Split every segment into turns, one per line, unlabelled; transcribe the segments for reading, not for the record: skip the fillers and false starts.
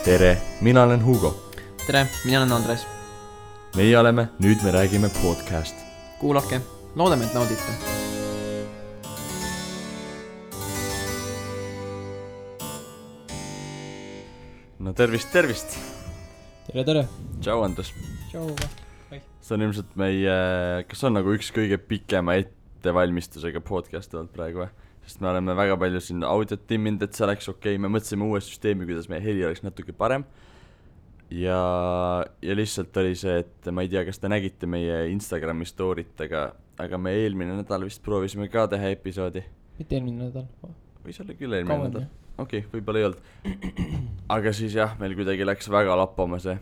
tere, mina olen Hugo.
Tere, mina olen Andres.
Meie oleme Nüüd me räägime podcast.
Kuulake, loodame, et naudite.
No tervist.
Tere.
Tšau, Andres.
Tšau.
See on ilmselt meie, kas on nagu üks kõige pikema ettevalmistusega podcast olnud praegu või? Sest me oleme väga palju siin audiot timminud, et see oleks okei. Me mõtlesime uue süsteemi, kuidas meie heli oleks natuke parem. Ja lihtsalt oli see, et ma ei tea, kas te nägite meie Instagrami story'tega, aga me eelmine nädal vist proovisime ka teha episoodi.
Mitte eelmine nädal.
Võis olla küll eelmine nädal. Okei, võib-olla ei olnud. Aga siis jah, meil kuidagi läks väga lappama see.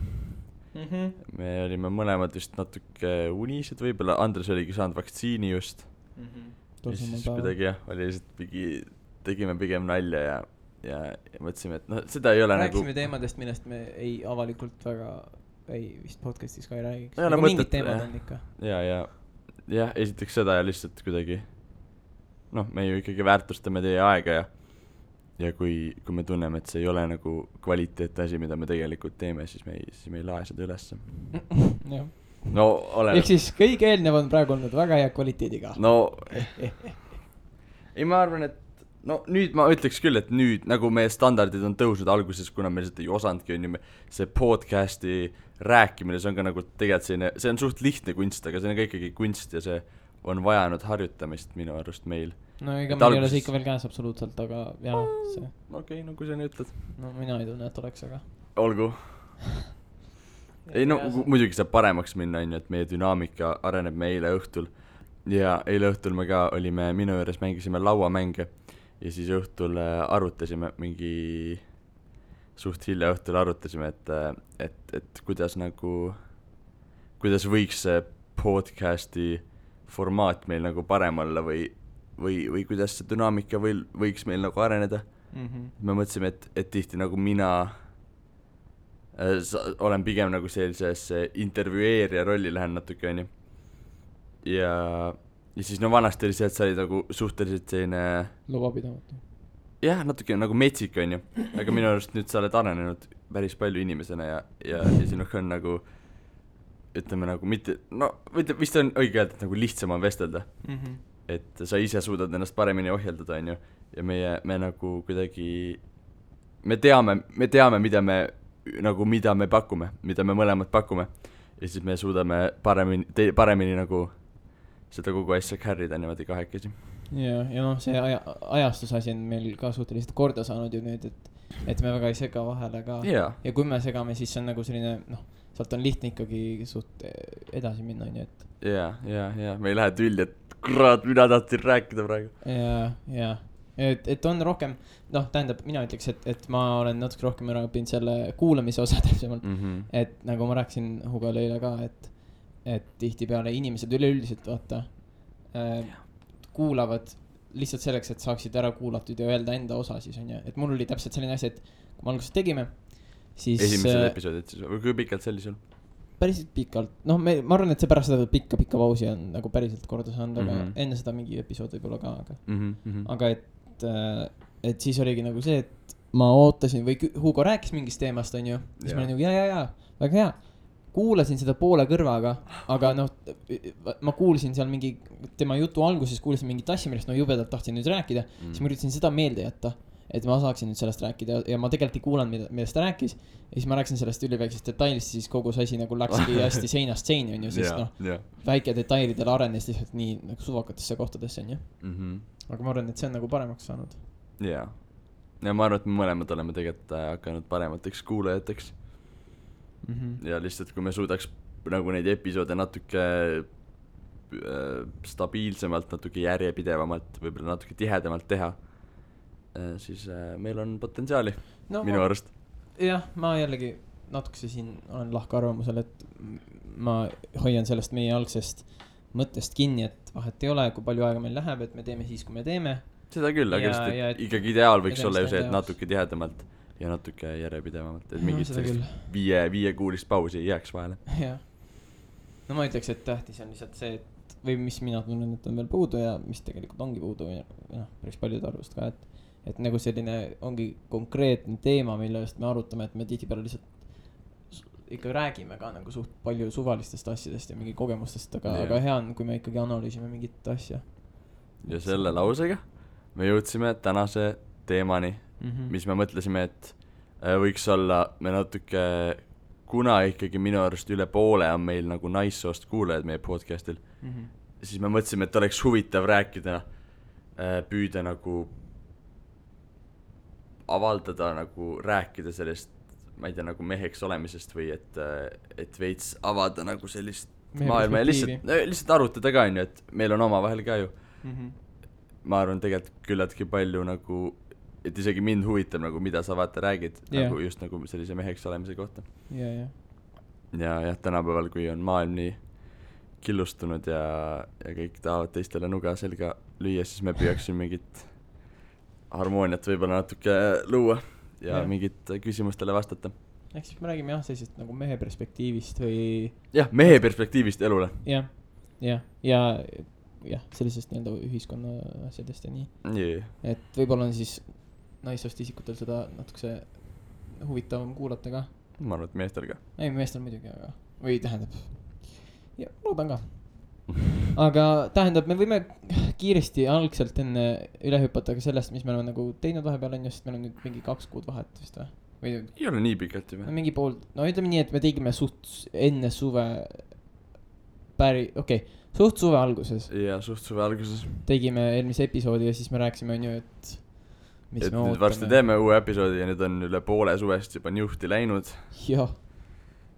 Me olime mõlemad vist natuke unised, võib-olla Andres oligi saanud vaktsiini just. Ja siis kuidagi jah, oli lihtsalt tegime pigem nalja ja mõtlesime, et seda ei ole
rääksime
nagu...
teemadest, millest me ei avalikult väga vist podcastis ka ei räägiks.
Aga
mingid teemad on ikka.
Ja esiteks seda ja lihtsalt kuidagi me ju ikkagi väärtustame teie aega ja kui me tunneme, et see ei ole nagu kvaliteetne asi, mida me tegelikult teeme, siis me ei lae seda ülesse.
Jah.
No olen...
Ehk siis kõige eelnev on praegu olnud väga hea kvaliteediga.
Ei, ma arvan, et nüüd ma ütleks küll, et nüüd nagu meie standardid on tõusnud alguses, kuna me lihtsalt ei osandki, see podcasti rääkimine, see on ka nagu tegelikult selline, see on suht lihtne kunst, aga see on ka ikkagi kunst ja see on vajanud harjutamist minu arust meil.
No ega meil ei ole see ikka veel käes absoluutselt, aga jah, see...
Okei, kui sa nii ütled.
No mina ei tunne, et oleks, aga...
Olgu. Ei muidugi saab paremaks minna, et meie dünaamika areneb me eile õhtul. Ja eile õhtul me ka olime, minu juures mängisime lauamänge ja siis õhtul arutasime mingi, suht hilja õhtul arutasime, et kuidas võiks see podcasti formaat meil nagu parem olla või kuidas see dünaamika võiks meil nagu areneda. Me mõtlesime, et tihti nagu mina olen pigem nagu sellises intervjueerija rolli lähen natuke, onju. Ja siis vanasti oli see, et sa olid nagu suhteliselt selline... Lubapidamatu. Jah, natuke nagu metsik, onju. Aga minu arust nüüd sa oled arenenud päris palju inimesena ja sinuga on nagu, ütleme nagu mitte, vist on õige öelda, et nagu lihtsam on vestelda. Et sa ise suudad ennast paremini ohjeldada, onju. Ja me nagu kuidagi, me teame, mida me pakume, mida me mõlemad pakume. Ja siis me suudame paremini nagu seda kogu asja carry'da niimoodi kahekesi. Ja
see ajastusasi on meil ka suhteliselt korda saanud ju nüüd, et me väga ei sega vahele ka. Ja kui me segame, siis on nagu selline, sealt on lihtne ikkagi suht edasi minna, onju, et... Ja, me ei lähe tülli, et kurat, mina tahtsin rääkida praegu. Ja, et on rohkem, tähendab, mina ütleks, et ma olen natuke rohkem ära õppinud selle kuulamise osa täpsemalt, et nagu ma rääkisin Hugole eile ka, et tihti peale inimesed üleüldiselt kuulavad lihtsalt selleks, et saaksid ära kuulatud ja öelda enda osa siis on ja, et mul oli täpselt selline asi, et kui me alguses tegime, siis...
Esimesel episoodid siis, või kui pikalt see oli sul?
Päriselt pikalt, ma arvan, et see pärast seda pikka pausi on nagu päriselt korda saanud, aga enne seda mingi episood võib olla ka, aga et siis oligi nagu see, et ma ootasin või Hugo rääkis mingist teemast, on ju, siis ma olin nagu ja, väga hea, kuulasin seda poole kõrvaga, aga ma kuulsin seal mingi, tema jutu alguses kuulsin mingit asja, millest ma jubedalt tahtsin nüüd rääkida, siis ma üritasin seda meelde jätta, et ma saaksin nüüd sellest rääkida ja ma tegelikult ei kuulanud, millest ta rääkis ja siis ma rääkisin sellest üliväiksest detailist, siis kogu see asi nagu läkski hästi seinast seini, on ju, sest väike detailidel arenes lihtsalt nii nagu suvakatesse kohtadesse, on ju. Aga ma arvan, et see on nagu paremaks saanud.
Ja ma arvan, et me mõlemad oleme tegelikult hakanud paremateks kuulajateks. Ja lihtsalt, kui me suudaks nagu neid episoode natuke stabiilsemalt, natuke järjepidevamalt, võib-olla natuke tihedamalt teha, siis meil on potentsiaali minu arust.
Jah, ma jällegi natukese siin olen lahka arvamusel, et ma hoian sellest meie algsest mõttest kinni, et vahet ei ole, kui palju aega meil läheb, et me teeme siis, kui me teeme.
Seda küll, aga ikkagi ideaal võiks olla ju see, et natuke tihedamalt ja natuke järjepidevamalt, et mingit viie kuulist pausi ei jääks vahele.
Jah. No ma ütleks, et tähtis on lihtsalt see, et või mis mina tunnen, et on veel puudu ja mis tegelikult ongi puudu ja päris paljude arvust ka, et nagu selline ongi konkreetne teema, millest me arutame, et me tihtipeale lihtsalt ikka räägime ka nagu suht palju suvalistest asjadest ja mingi kogemustest, aga hea on, kui me ikkagi analüüsime mingit asja.
Ja selle lausega me jõudsime tänase teemani, mis me mõtlesime, et võiks olla me natuke, kuna ikkagi minu arust üle poole on meil nagu naissoost kuulajad meie podcastil, siis me mõtlesime, et oleks huvitav rääkida, püüda nagu avaldada, nagu rääkida sellest, ma ei tea, nagu meheks olemisest või et veits avada nagu sellist maailma ja lihtsalt arutada ka, on ju, et meil on oma vahel ka ju. Ma arvan tegelikult küllaltki palju nagu, et isegi mind huvitab nagu, mida sa vaata räägid, nagu just nagu sellise meheks olemise kohta. Ja tänapäeval, kui on maailm nii killustunud ja kõik tahavad teistele nuga selga lüüa, siis me püüaksime mingit harmooniat võib-olla natuke luua ja mingit küsimustele vastata.
Ehk siis me räägime sellisest nagu mehe perspektiivist või...
mehe perspektiivist elule.
Ja sellisest nii-öelda ühiskonna asjadest ja nii. Et võib-olla on siis naissoost isikutel seda natukese huvitavam kuulata ka.
Ma arvan, et meestel ka.
Ei, meestel muidugi, aga... Või tähendab... Ja, loodan ka. Aga tähendab, me võime kiiresti algselt enne üle hüpata ka sellest, mis me oleme nagu teinud vahepeal on, sest meil on nüüd mingi 2 kuud vahet vist või?
Ei ole nii pikalt juba.
Mingi pool, no ütleme nii, et me tegime suht enne suve suht suve alguses.
Ja, suht suve alguses.
Tegime eelmise episoodi ja siis me rääkisime on ju, et mis
me ootame. Varsti teeme uue episoodi ja nüüd on üle poole suvest juba njuhti läinud. Ja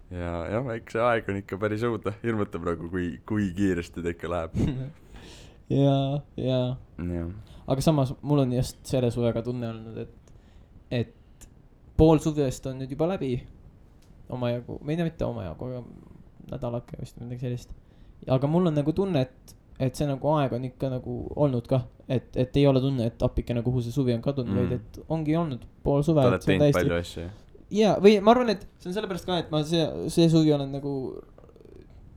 eks see aeg on ikka päris õudne, hirmutab nagu, kui kiiresti ta ikka läheb.
ja. Aga samas mul on just selle suvega tunne olnud, et pool suvest on nüüd juba läbi omajagu, või mitte omajagu, aga nädalake vist midagi sellist. Aga mul on nagu tunne, et see nagu aeg on ikka nagu olnud ka, et ei ole tunne, et appike nagu kuhu see suvi on kadunud, vaid et ongi olnud pool suve.
Ta oled teinud palju asju.
Ja, või ma arvan, et see on sellepärast ka, et ma see suvi olen nagu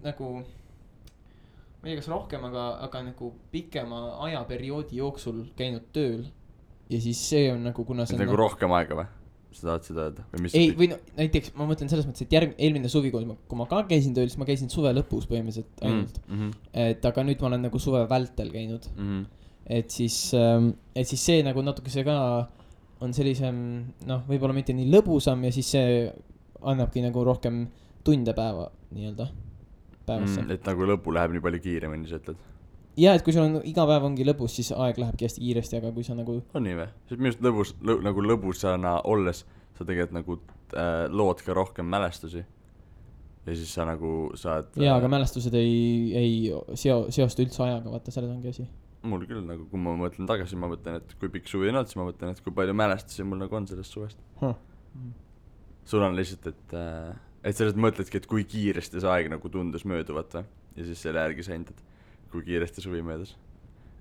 ma ei tea, kas rohkem, aga nagu pikema ajaperioodi jooksul käinud tööl. Ja siis see on nagu, kuna see on
nagu rohkem aega või? Sa tahad seda öelda?
Ei, või no, näiteks ma mõtlen selles mõttes, et eelmine suvi, kui ma ka käisin tööl, siis ma käisin suve lõpus põhimõtteliselt ainult. Et aga nüüd ma olen nagu suve vältel käinud. Et siis see nagu natuke see ka on sellisem, võib-olla mitte nii lõbusam ja siis see annabki nagu rohkem tunde päeva nii-öelda päevasse.
Et nagu lõpu läheb nii palju kiiremini, sa ütled?
Ja, et kui sul on iga päev ongi lõbus, siis aeg lähebki hästi kiiresti, aga kui sa nagu...
On nii või? Sest minust nagu lõbusana olles sa tegelikult nagu lood ka rohkem mälestusi. Ja siis sa nagu saad...
Ja, aga mälestused ei seosta üldse ajaga, vaata, selles ongi asi.
Mul küll nagu, kui ma mõtlen tagasi, ma mõtlen, et kui pikk suvi on olnud, siis ma mõtlen, et kui palju mälestusi mul nagu on sellest suvest. Sul on lihtsalt, et sellest mõtledki, et kui kiiresti see aeg nagu tundus mööduvat või? Ja siis selle järgi sa hindad, kui kiiresti suvi möödus.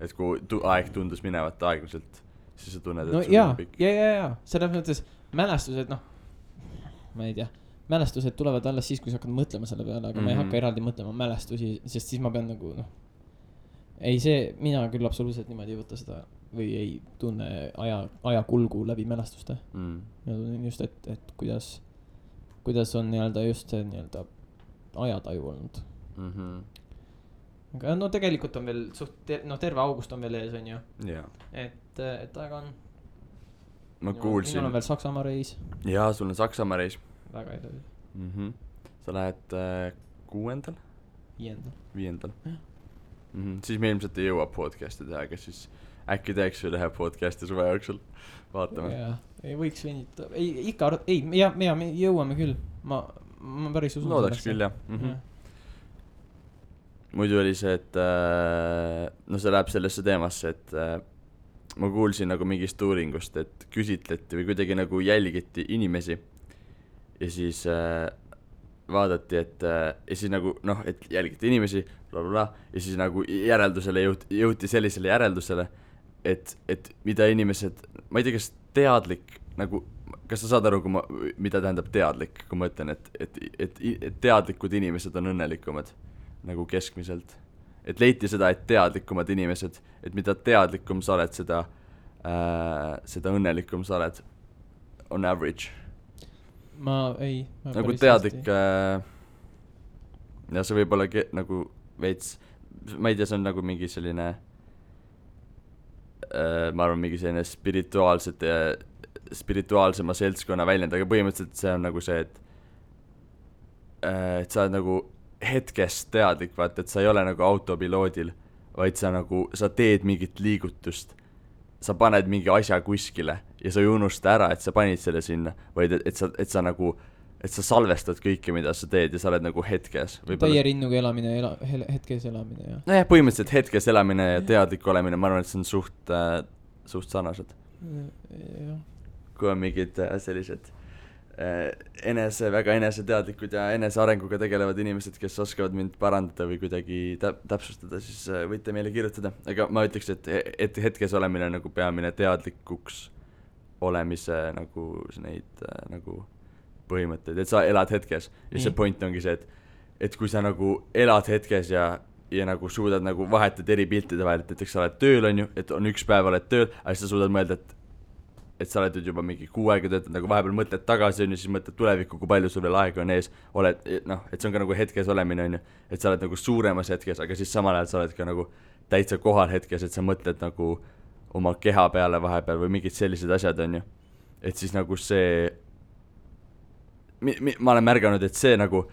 Et kui aeg tundus minevat aeglaselt, siis sa tunned, et suvi on pikk.
Ja. Selles mõttes mälestused, ma ei tea, mälestused tulevad alles siis, kui sa hakkad mõtlema selle peale, aga ma ei hakka eraldi mõtlema mälestusi, sest siis ma pean nagu, mina küll absoluutselt niimoodi ei võta seda või ei tunne aja kulgu läbi mälestuste. Ja tunnen just, et kuidas on nii-öelda just see nii-öelda ajataju olnud. Aga tegelikult on veel terve august on veel ees, on ju. Et aega on.
Ma kuulsin.
Minul on veel Saksamaa reis.
Jaa, sul on Saksamaa reis.
Väga edasi.
Sa lähed 6. 5. Siis me ilmselt ei jõua podcasti teha, aga siis äkki teeks üle podcasti suve jooksul. Vaatame.
Ei võiks venita. Me jõuame küll. Ma päris usun.
Loodaks küll, jah. Muidu oli see, et see läheb sellesse teemasse, et ma kuulsin nagu mingist uuringust, et küsitleti või kuidagi nagu jälgiti inimesi ja siis vaadati, et ja siis nagu et jälgiti inimesi blablabla, ja siis nagu järeldusele jõuti sellisele järeldusele, et mida inimesed, ma ei tea, kas teadlik nagu, kas sa saad aru, mida tähendab teadlik, kui ma ütlen, et teadlikud inimesed on õnnelikumad nagu keskmiselt, et leiti seda, et teadlikumad inimesed, et mida teadlikum sa oled, seda seda õnnelikum sa oled on average.
Ma
nagu teadlik ja see võib olla nagu veits, ma ei tea, see on nagu mingi selline ma arvan mingi selline spirituaalsema seltskonna väljend, aga põhimõtteliselt see on nagu see, et sa oled nagu hetkest teadlik, vaata, et sa ei ole nagu autopiloodil, vaid sa nagu, sa teed mingit liigutust, sa paned mingi asja kuskile ja sa ei unusta ära, et sa panid selle sinna, vaid et sa nagu, et sa salvestad kõike, mida sa teed ja sa oled nagu hetkes.
Täie rinnuga elamine, hetkes elamine, jah.
Nojah, põhimõtteliselt hetkes elamine ja teadlik olemine, ma arvan, et see on suht sarnased. Kui on mingid sellised väga eneseteadlikud ja enesearenguga tegelevad inimesed, kes oskavad mind parandada või kuidagi täpsustada, siis võite meile kirjutada. Aga ma ütleks, et hetkes olemine on nagu peamine teadlikuks olemise nagu neid nagu põhimõtteid, et sa elad hetkes. Ja see point ongi see, et kui sa nagu elad hetkes ja nagu suudad nagu vahetad eri piltide vahel, et näiteks sa oled tööl, on ju, et on üks päev oled tööl, aga siis sa suudad mõelda, et sa oled juba mingi 6 aega töötad, nagu vahepeal mõtled tagasi, on ju, siis mõtled tulevikku, kui palju sul veel aega on ees, oled, noh, et see on ka nagu hetkes olemine, on ju, et sa oled nagu suuremas hetkes, aga siis samal ajal sa oled ka nagu täitsa kohal hetkes, et sa mõtled nagu oma keha peale vahepeal või mingid sellised asjad, on ju, et siis nagu see ma olen märganud, et see nagu,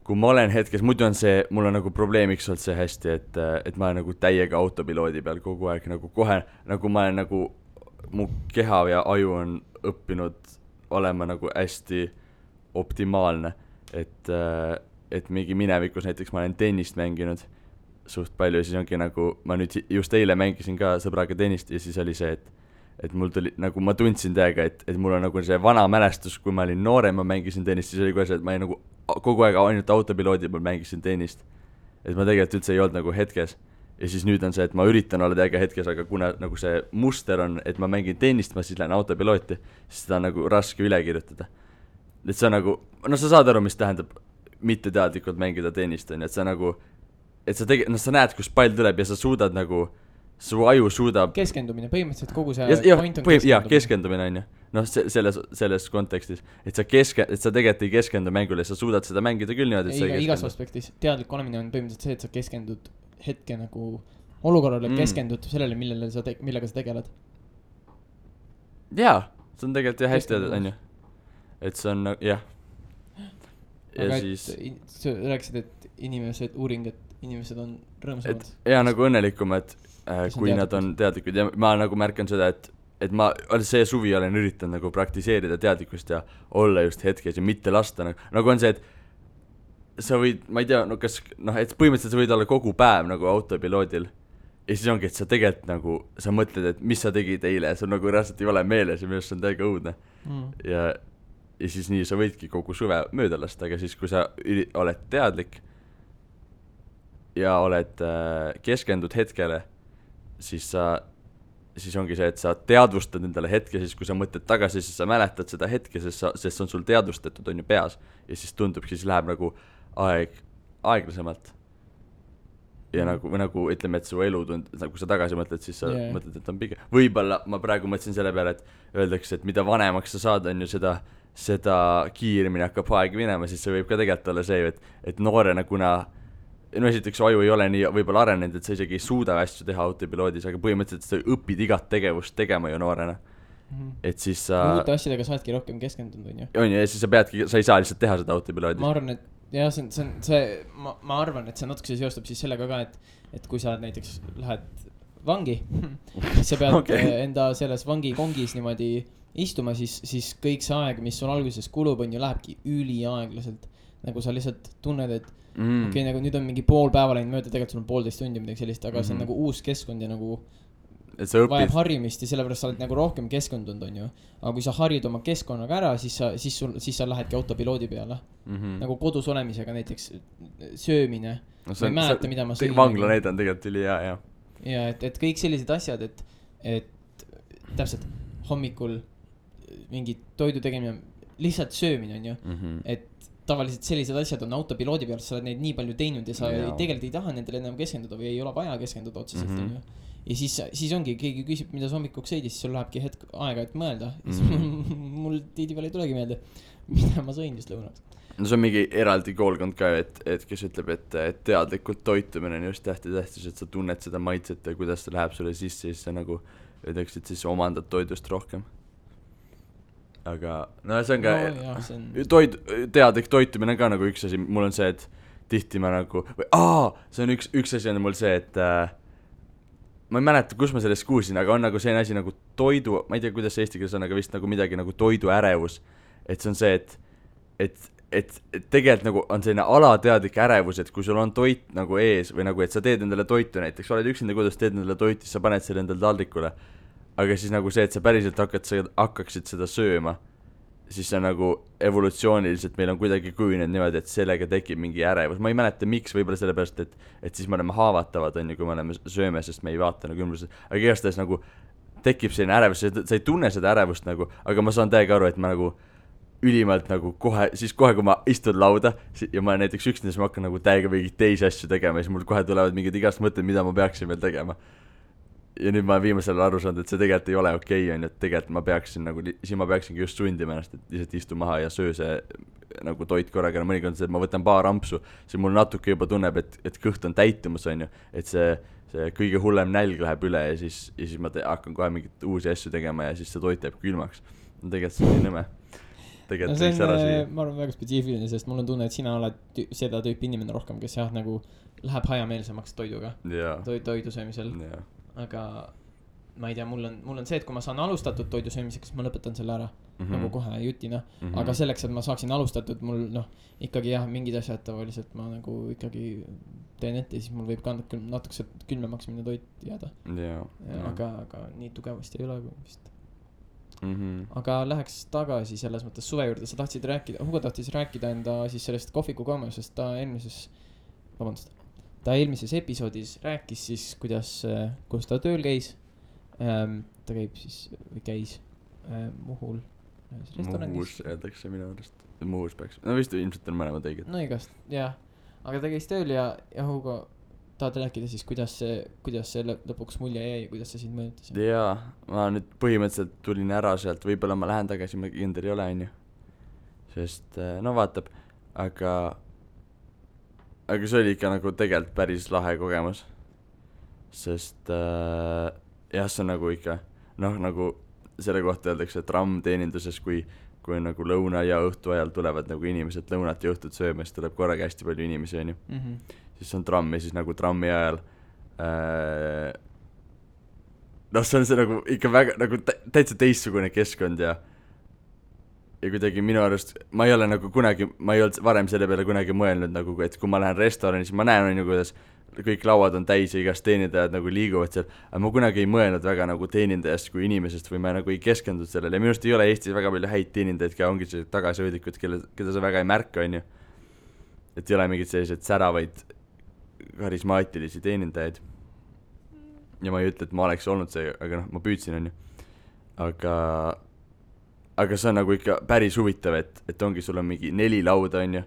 kui ma olen hetkes, muidu on see, mul on nagu probleemiks olnud see hästi, et ma olen nagu täiega autopiloodi peal kogu aeg, nagu kohe, nagu ma olen nagu mu keha ja aju on õppinud olema nagu hästi optimaalne, et mingi minevikus näiteks ma olen tennist mänginud suht palju ja siis ongi nagu, ma nüüd just eile mängisin ka sõbraga tennist ja siis oli see, et mul tuli, nagu ma tundsin täiega, et mul on nagu see vana mälestus, kui ma olin noorem, ma mängisin tennist, siis oli kohe see, et ma nagu kogu aeg ainult autopiloodi peal mängisin tennist, et ma tegelikult üldse ei olnud nagu hetkes. Ja siis nüüd on see, et ma üritan olla täiega hetkes, aga kuna nagu see muster on, et ma mängin tennist, ma siis lähen autopilooti, siis seda on nagu raske üle kirjutada. Et see on nagu, no sa saad aru, mis tähendab mitteteadlikult mängida tennist, on, et sa nagu, et sa sa näed, kus pall tuleb ja sa suudad nagu, su aju suudab
keskendumine, põhimõtteliselt kogu see
point on keskendumine. Jah, keskendumine on ju, noh, selles kontekstis, et sa tegelikult ei keskendu mängule, sa suudad seda mängida küll niimoodi, et
igas aspektis, teadlik olemine on põhimõtteliselt see, et sa keskendud hetke nagu olukorrale, keskendud sellele, millega sa tegeled. Jaa,
see on tegelikult jah hästi öeldud, on ju. Et see on, jah.
Aga siis sa rääkisid, et uuring, et inimesed on rõõmsamad.
Jaa, nagu õnnelikumad, kui nad on teadlikud ja ma nagu märkan seda, et ma see suvi olen üritanud nagu praktiseerida teadlikkust ja olla just hetkes ja mitte lasta nagu on see, et sa võid, ma ei tea, no kas, noh, et põhimõtteliselt sa võid olla kogu päev nagu autopiloodil ja siis ongi, et sa tegelikult nagu, sa mõtled, et mis sa tegid eile ja sul nagu reaalselt ei ole meeles ja minu arust see on täiega õudne ja siis nii sa võidki kogu suve mööda lasta, aga siis kui sa oled teadlik ja oled keskendud hetkele, siis ongi see, et sa teadvustad endale hetke, siis kui sa mõtled tagasi, siis sa mäletad seda hetke, sest see on sul teadvustatud, on ju peas ja siis tundub, siis läheb nagu aeglasemalt ja nagu ütleme, et su elu nagu sa tagasi mõtled, siis sa mõtled, et on pigem võib-olla ma praegu mõtlesin selle peale, et öeldakse, et mida vanemaks sa saad, on ju seda kiiremini hakkab aeg minema, siis see võib ka tegelikult olla see, et noorena, kuna no esiteks aju ei ole nii võib-olla arenenud, et sa isegi ei suuda asju teha autopiloodis, aga põhimõtteliselt sa õpid igat tegevust tegema ju noorena. Et siis sa
uute asjadega saadki rohkem keskendunud, on ju.
On ju, ja siis sa ei saa lihtsalt teha seda autopiloodis.
Ma arvan, et jah, ma arvan, et see natuke seostub siis sellega ka, et kui sa näiteks lähed vangi, sa pead enda selles vangi kongis niimoodi istuma, siis kõik see aeg, mis sul alguses kulub, on ju, lähebki üliaeglaselt. Nagu sa lihtsalt tunned, et okei, nagu nüüd on mingi pool päeva läinud mööda, tegelikult sul on 1,5 tundi midagi sellist, aga see on nagu uus keskkond ja nagu vajab harjumist ja sellepärast sa oled nagu rohkem keskendunud, on ju. Aga kui sa harid oma keskkonnaga ära, siis sa lähedki autopiloodi peale. Nagu kodus olemisega näiteks söömine.
No, ma ei mäleta, mida ma sõin. Vangla näide on tegelikult üli hea, jah.
Ja, et kõik sellised asjad, et täpselt hommikul mingi toidu tegemine, lihtsalt söömine, on ju. Et tavaliselt sellised asjad on autopiloodi peal, sa oled neid nii palju teinud ja sa tegelikult ei taha nendele enam keskenduda või ei ole vaja keskenduda otseselt, on ju. ja siis ongi, keegi küsib, mida sa hommikuks sõidis, siis sul lähebki hetk aega, et mõelda. Mul tihtipeale ei tulegi meelde, mida ma sõin just lõunaks.
No see on mingi eraldi koolkond ka, et kes ütleb, et teadlikult toitumine on just tähtis, et sa tunned seda maitset ja kuidas ta läheb sulle sisse, siis sa nagu ütleks, et siis omandad toidust rohkem. Aga no see on ka teadlik toitumine ka nagu üks asi, mul on see, et tihti ma nagu see on üks asi on mul see, et ma ei mäleta, kus ma sellest kuulsin, aga on nagu selline asi nagu toidu, ma ei tea, kuidas eesti keeles on, aga vist nagu midagi nagu toiduärevus, et see on see, et tegelikult nagu on selline alateadlik ärevus, et kui sul on toit nagu ees või nagu, et sa teed endale toitu näiteks, oled üksinda kodus, teed endale toitu, siis sa paned selle endale taldrikule, aga siis nagu see, et sa päriselt hakkaksid seda sööma, siis see nagu evolutsiooniliselt meil on kuidagi kujunenud niimoodi, et sellega tekib mingi ärevus, ma ei mäleta miks, võib-olla sellepärast, et siis me oleme haavatavad, on ju, kui me oleme sööme, sest me ei vaata nagu ümbrusest, aga igastahes nagu tekib selline ärevus, sa ei tunne seda ärevust nagu, aga ma saan täiega aru, et ma nagu ülimalt nagu kohe, kui ma istun lauda ja ma olen näiteks üksinda, siis ma hakkan nagu täiega mingeid teisi asju tegema ja siis mul kohe tulevad mingid igast mõtted, mida ma peaksin veel tegema. Ja nüüd ma viimasel aru saanud, et see tegelikult ei ole okei, on ju, et tegelikult ma peaksin nagu, siis ma peaksingi just sundima ennast, et lihtsalt istu maha ja söö see nagu toit korraga, mõnikord see, et ma võtan paar ampsu, siis mul natuke juba tunneb, et kõht on täitumus, on ju, et see kõige hullem nälg läheb üle ja siis ma hakkan kohe mingit uusi asju tegema ja siis see toit jääb külmaks. Tegelikult see on nii nõme.
No see on, ma arvan, väga spetsiifiline, sest mul on tunne, et sina oled seda tüüpi inimene rohkem, kes jah, nagu läheb hajameelsemaks toiduga, toidu söömisel, aga ma ei tea, mul on see, et kui ma saan alustatud toidu söömiseks, ma lõpetan selle ära nagu kohe jutina, aga selleks, et ma saaksin alustatud, mul ikkagi jah, mingid asjad tavaliselt ma nagu ikkagi teen ette, siis mul võib ka natukese külmemaks minna toit jääda, aga nii tugevasti ei ole vist. Aga läheks tagasi selles mõttes suve juurde, sa tahtsid rääkida, Hugo tahtis rääkida enda siis sellest kohviku koomusest, ta eelmises episoodis rääkis siis, kus ta tööl käis, ta käib siis, või käis Muhul
restoranis. Muhus öeldakse minu arust, Muhus peaks, no vist ilmselt on mõlemad õiged.
No igast, jah, aga ta käis tööl ja Hugo tahad rääkida siis, kuidas see lõpuks mulje jäi ja kuidas see sind mõjutas?
Jaa, ma nüüd põhimõtteliselt tulin ära sealt, võib-olla ma lähen tagasi, ma kindel ei ole, on ju. Sest, no vaatab, aga see oli ikka nagu tegelikult päris lahe kogemus. Sest, jah, see on nagu ikka, nagu selle kohta öeldakse, et rammteeninduses, kui nagu lõuna ja õhtu ajal tulevad nagu inimesed lõunat ja õhtut sööma, siis tuleb korraga hästi palju inimesi, on ju. Siis on tramm ja siis nagu trammi ajal see on see nagu ikka väga nagu täitsa teistsugune keskkond ja kuidagi minu arust ma ei ole nagu kunagi, ma ei olnud varem selle peale kunagi mõelnud nagu, et kui ma lähen restorani, siis ma näen nagu, kuidas kõik lauad on täis ja igast teenindajad nagu liiguvad seal, aga ma kunagi ei mõelnud väga nagu teenindajast kui inimesest või ma nagu ei keskendunud sellele ja minu arust ei ole Eestis väga palju häid teenindajaid ka, ongi see tagasihoidlikud, keda sa väga ei märka, on ju, et ei ole mingid sellised säravaid karismaatilisi teenindajaid ja ma ei ütle, et ma oleks olnud see, aga ma püüdsin, on ju, aga see on nagu ikka päris huvitav, et ongi, sul on mingi 4 lauda, on ju,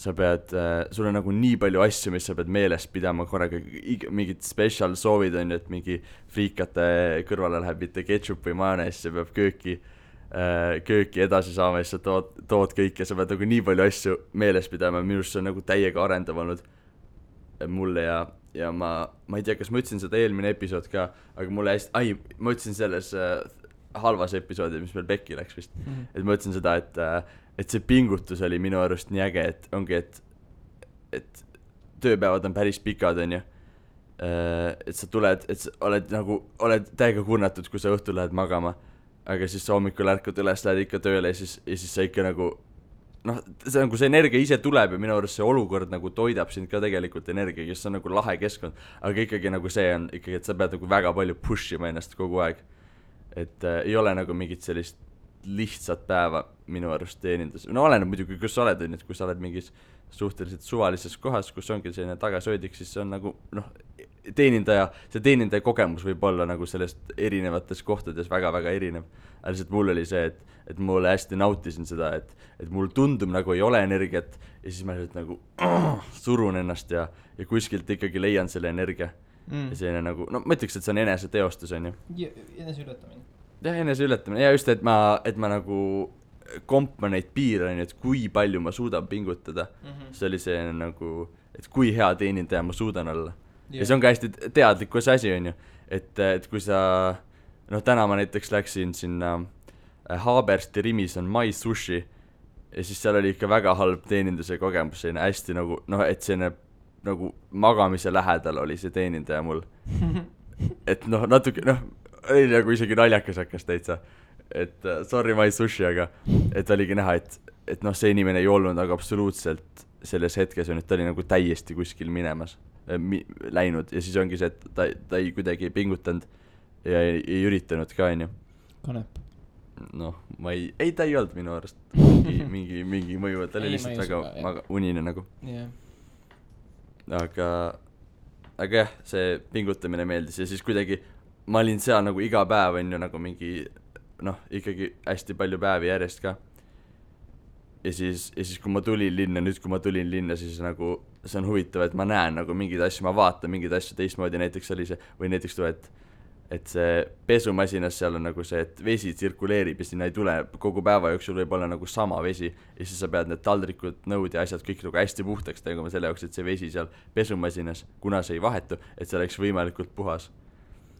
sa pead, sul on nagu nii palju asju, mis sa pead meeles pidama korraga, mingid special soovid, on ju, et mingi friikate kõrvale läheb mitte ketchup või majonees, sa peab kööki edasi saama ja siis sa tood kõik ja sa pead nagu nii palju asju meeles pidama, minu arust see on nagu täiega arendav olnud mulle ja ma ei tea, kas ma ütlesin seda eelmine episood ka, aga mulle ma ütlesin selles halvas episoodi, mis meil pekki läks vist, et ma ütlesin seda, et see pingutus oli minu arust nii äge, et ongi, et tööpäevad on päris pikad, on ju, et sa tuled, et sa oled täiega kurnatud, kui sa õhtul lähed magama, aga siis sa hommikul ärkud üles, lähed ikka tööle ja siis sa ikka nagu see nagu see energia ise tuleb ja minu arust see olukord nagu toidab sind ka tegelikult energia, kes on nagu lahe keskkond, aga ikkagi nagu see on ikkagi, et sa pead nagu väga palju push ima ennast kogu aeg, et ei ole nagu mingit sellist lihtsat päeva minu arust teenindus, no oleneb muidugi, kus sa oled, et kui sa oled mingis suhteliselt suvalises kohas, kus ongi selline tagasöödik, siis see on nagu see teenindaja kogemus võib olla nagu sellest erinevates kohtades väga-väga erinev, aga lihtsalt mul oli see, et mulle hästi nautisin seda, et mul tundub nagu ei ole energiat ja siis ma lihtsalt nagu surun ennast ja kuskilt ikkagi leian selle energia ja selline nagu, no ma ütleks, et see on eneseteostus, on ju.
Eneseületamine.
Jah, eneseületamine ja just, et ma nagu kompa neid piire, on ju, et kui palju ma suudan pingutada. See oli see nagu, et kui hea teenindaja ma suudan olla. Ja see on ka hästi teadlikkus asi, on ju, et kui sa, noh, täna ma näiteks läksin sinna Haabersti Rimis on My Sushi ja siis seal oli ikka väga halb teeninduse kogemus, selline hästi nagu, noh, et selline nagu magamise lähedal oli see teenindaja mul. Et noh, natuke, noh, oli nagu isegi naljakas hakkas täitsa, et sorry My Sushi, aga et oligi näha, et noh, see inimene ei olnud nagu absoluutselt selles hetkes, on, et ta oli nagu täiesti kuskil minemas, läinud ja siis ongi see, et ta ei kuidagi ei pingutanud ja ei üritanud ka, on ju.
Kanep.
Noh, ta ei olnud minu arust mingi mõju, ta oli lihtsalt väga unine nagu. Aga jah, see pingutamine meeldis ja siis kuidagi ma olin seal nagu iga päev, on ju, nagu mingi, noh, ikkagi hästi palju päevi järjest ka. Ja siis kui ma tulin linna, siis nagu see on huvitav, et ma näen nagu mingeid asju, ma vaatan mingeid asju teistmoodi, näiteks oli see, või näiteks tuli, et see pesumasinas seal on nagu see, et vesi tsirkuleerib ja sinna ei tule kogu päeva jooksul võib olla nagu sama vesi ja siis sa pead need taldrikud, nõud ja asjad kõik nagu hästi puhtaks tegema selle jaoks, et see vesi seal pesumasinas, kuna see ei vahetu, et see oleks võimalikult puhas.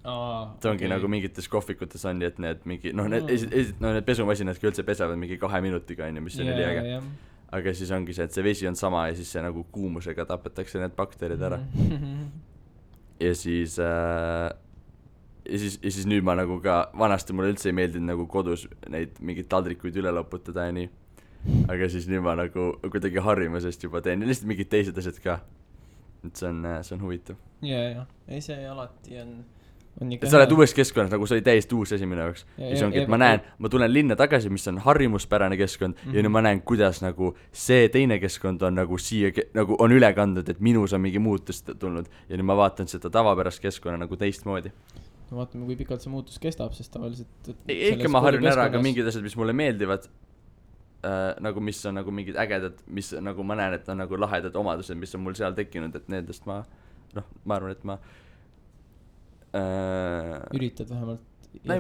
See ongi nagu mingites kohvikutes on, et need mingi, noh, need pesumasinadki üldse pesevad mingi 2 minutiga, on ju, mis on üliäge. Aga siis ongi see, et see vesi on sama ja siis see nagu kuumusega tapetakse need bakterid ära. Ja siis nüüd ma nagu ka, vanasti mulle üldse ei meeldinud nagu kodus neid mingeid taldrikuid üle loputada ja nii. Aga siis nüüd ma nagu kuidagi harjumusest juba teen ja lihtsalt mingid teised asjad ka. Et see on huvitav.
Ja. Ei see alati on
et sa oled uues keskkonnas, nagu see oli täiesti uus asi minu jaoks. Ja see ongi, et ma tulen linna tagasi, mis on harjumuspärane keskkond ja nüüd ma näen, kuidas nagu see teine keskkond on nagu siia, nagu on üle kandnud, et minus on mingi muutus tulnud ja nüüd ma vaatan seda tavapärast keskkonna nagu teistmoodi.
No vaatame, kui pikalt see muutus kestab, sest tavaliselt
ikka ma harjun ära ka mingid asjad, mis mulle meeldivad, nagu mis on nagu mingid ägedad, mis nagu ma näen, et on nagu lahedad omadused, mis on mul seal tekkinud, et nendest ma arvan, et ma
üritad vähemalt.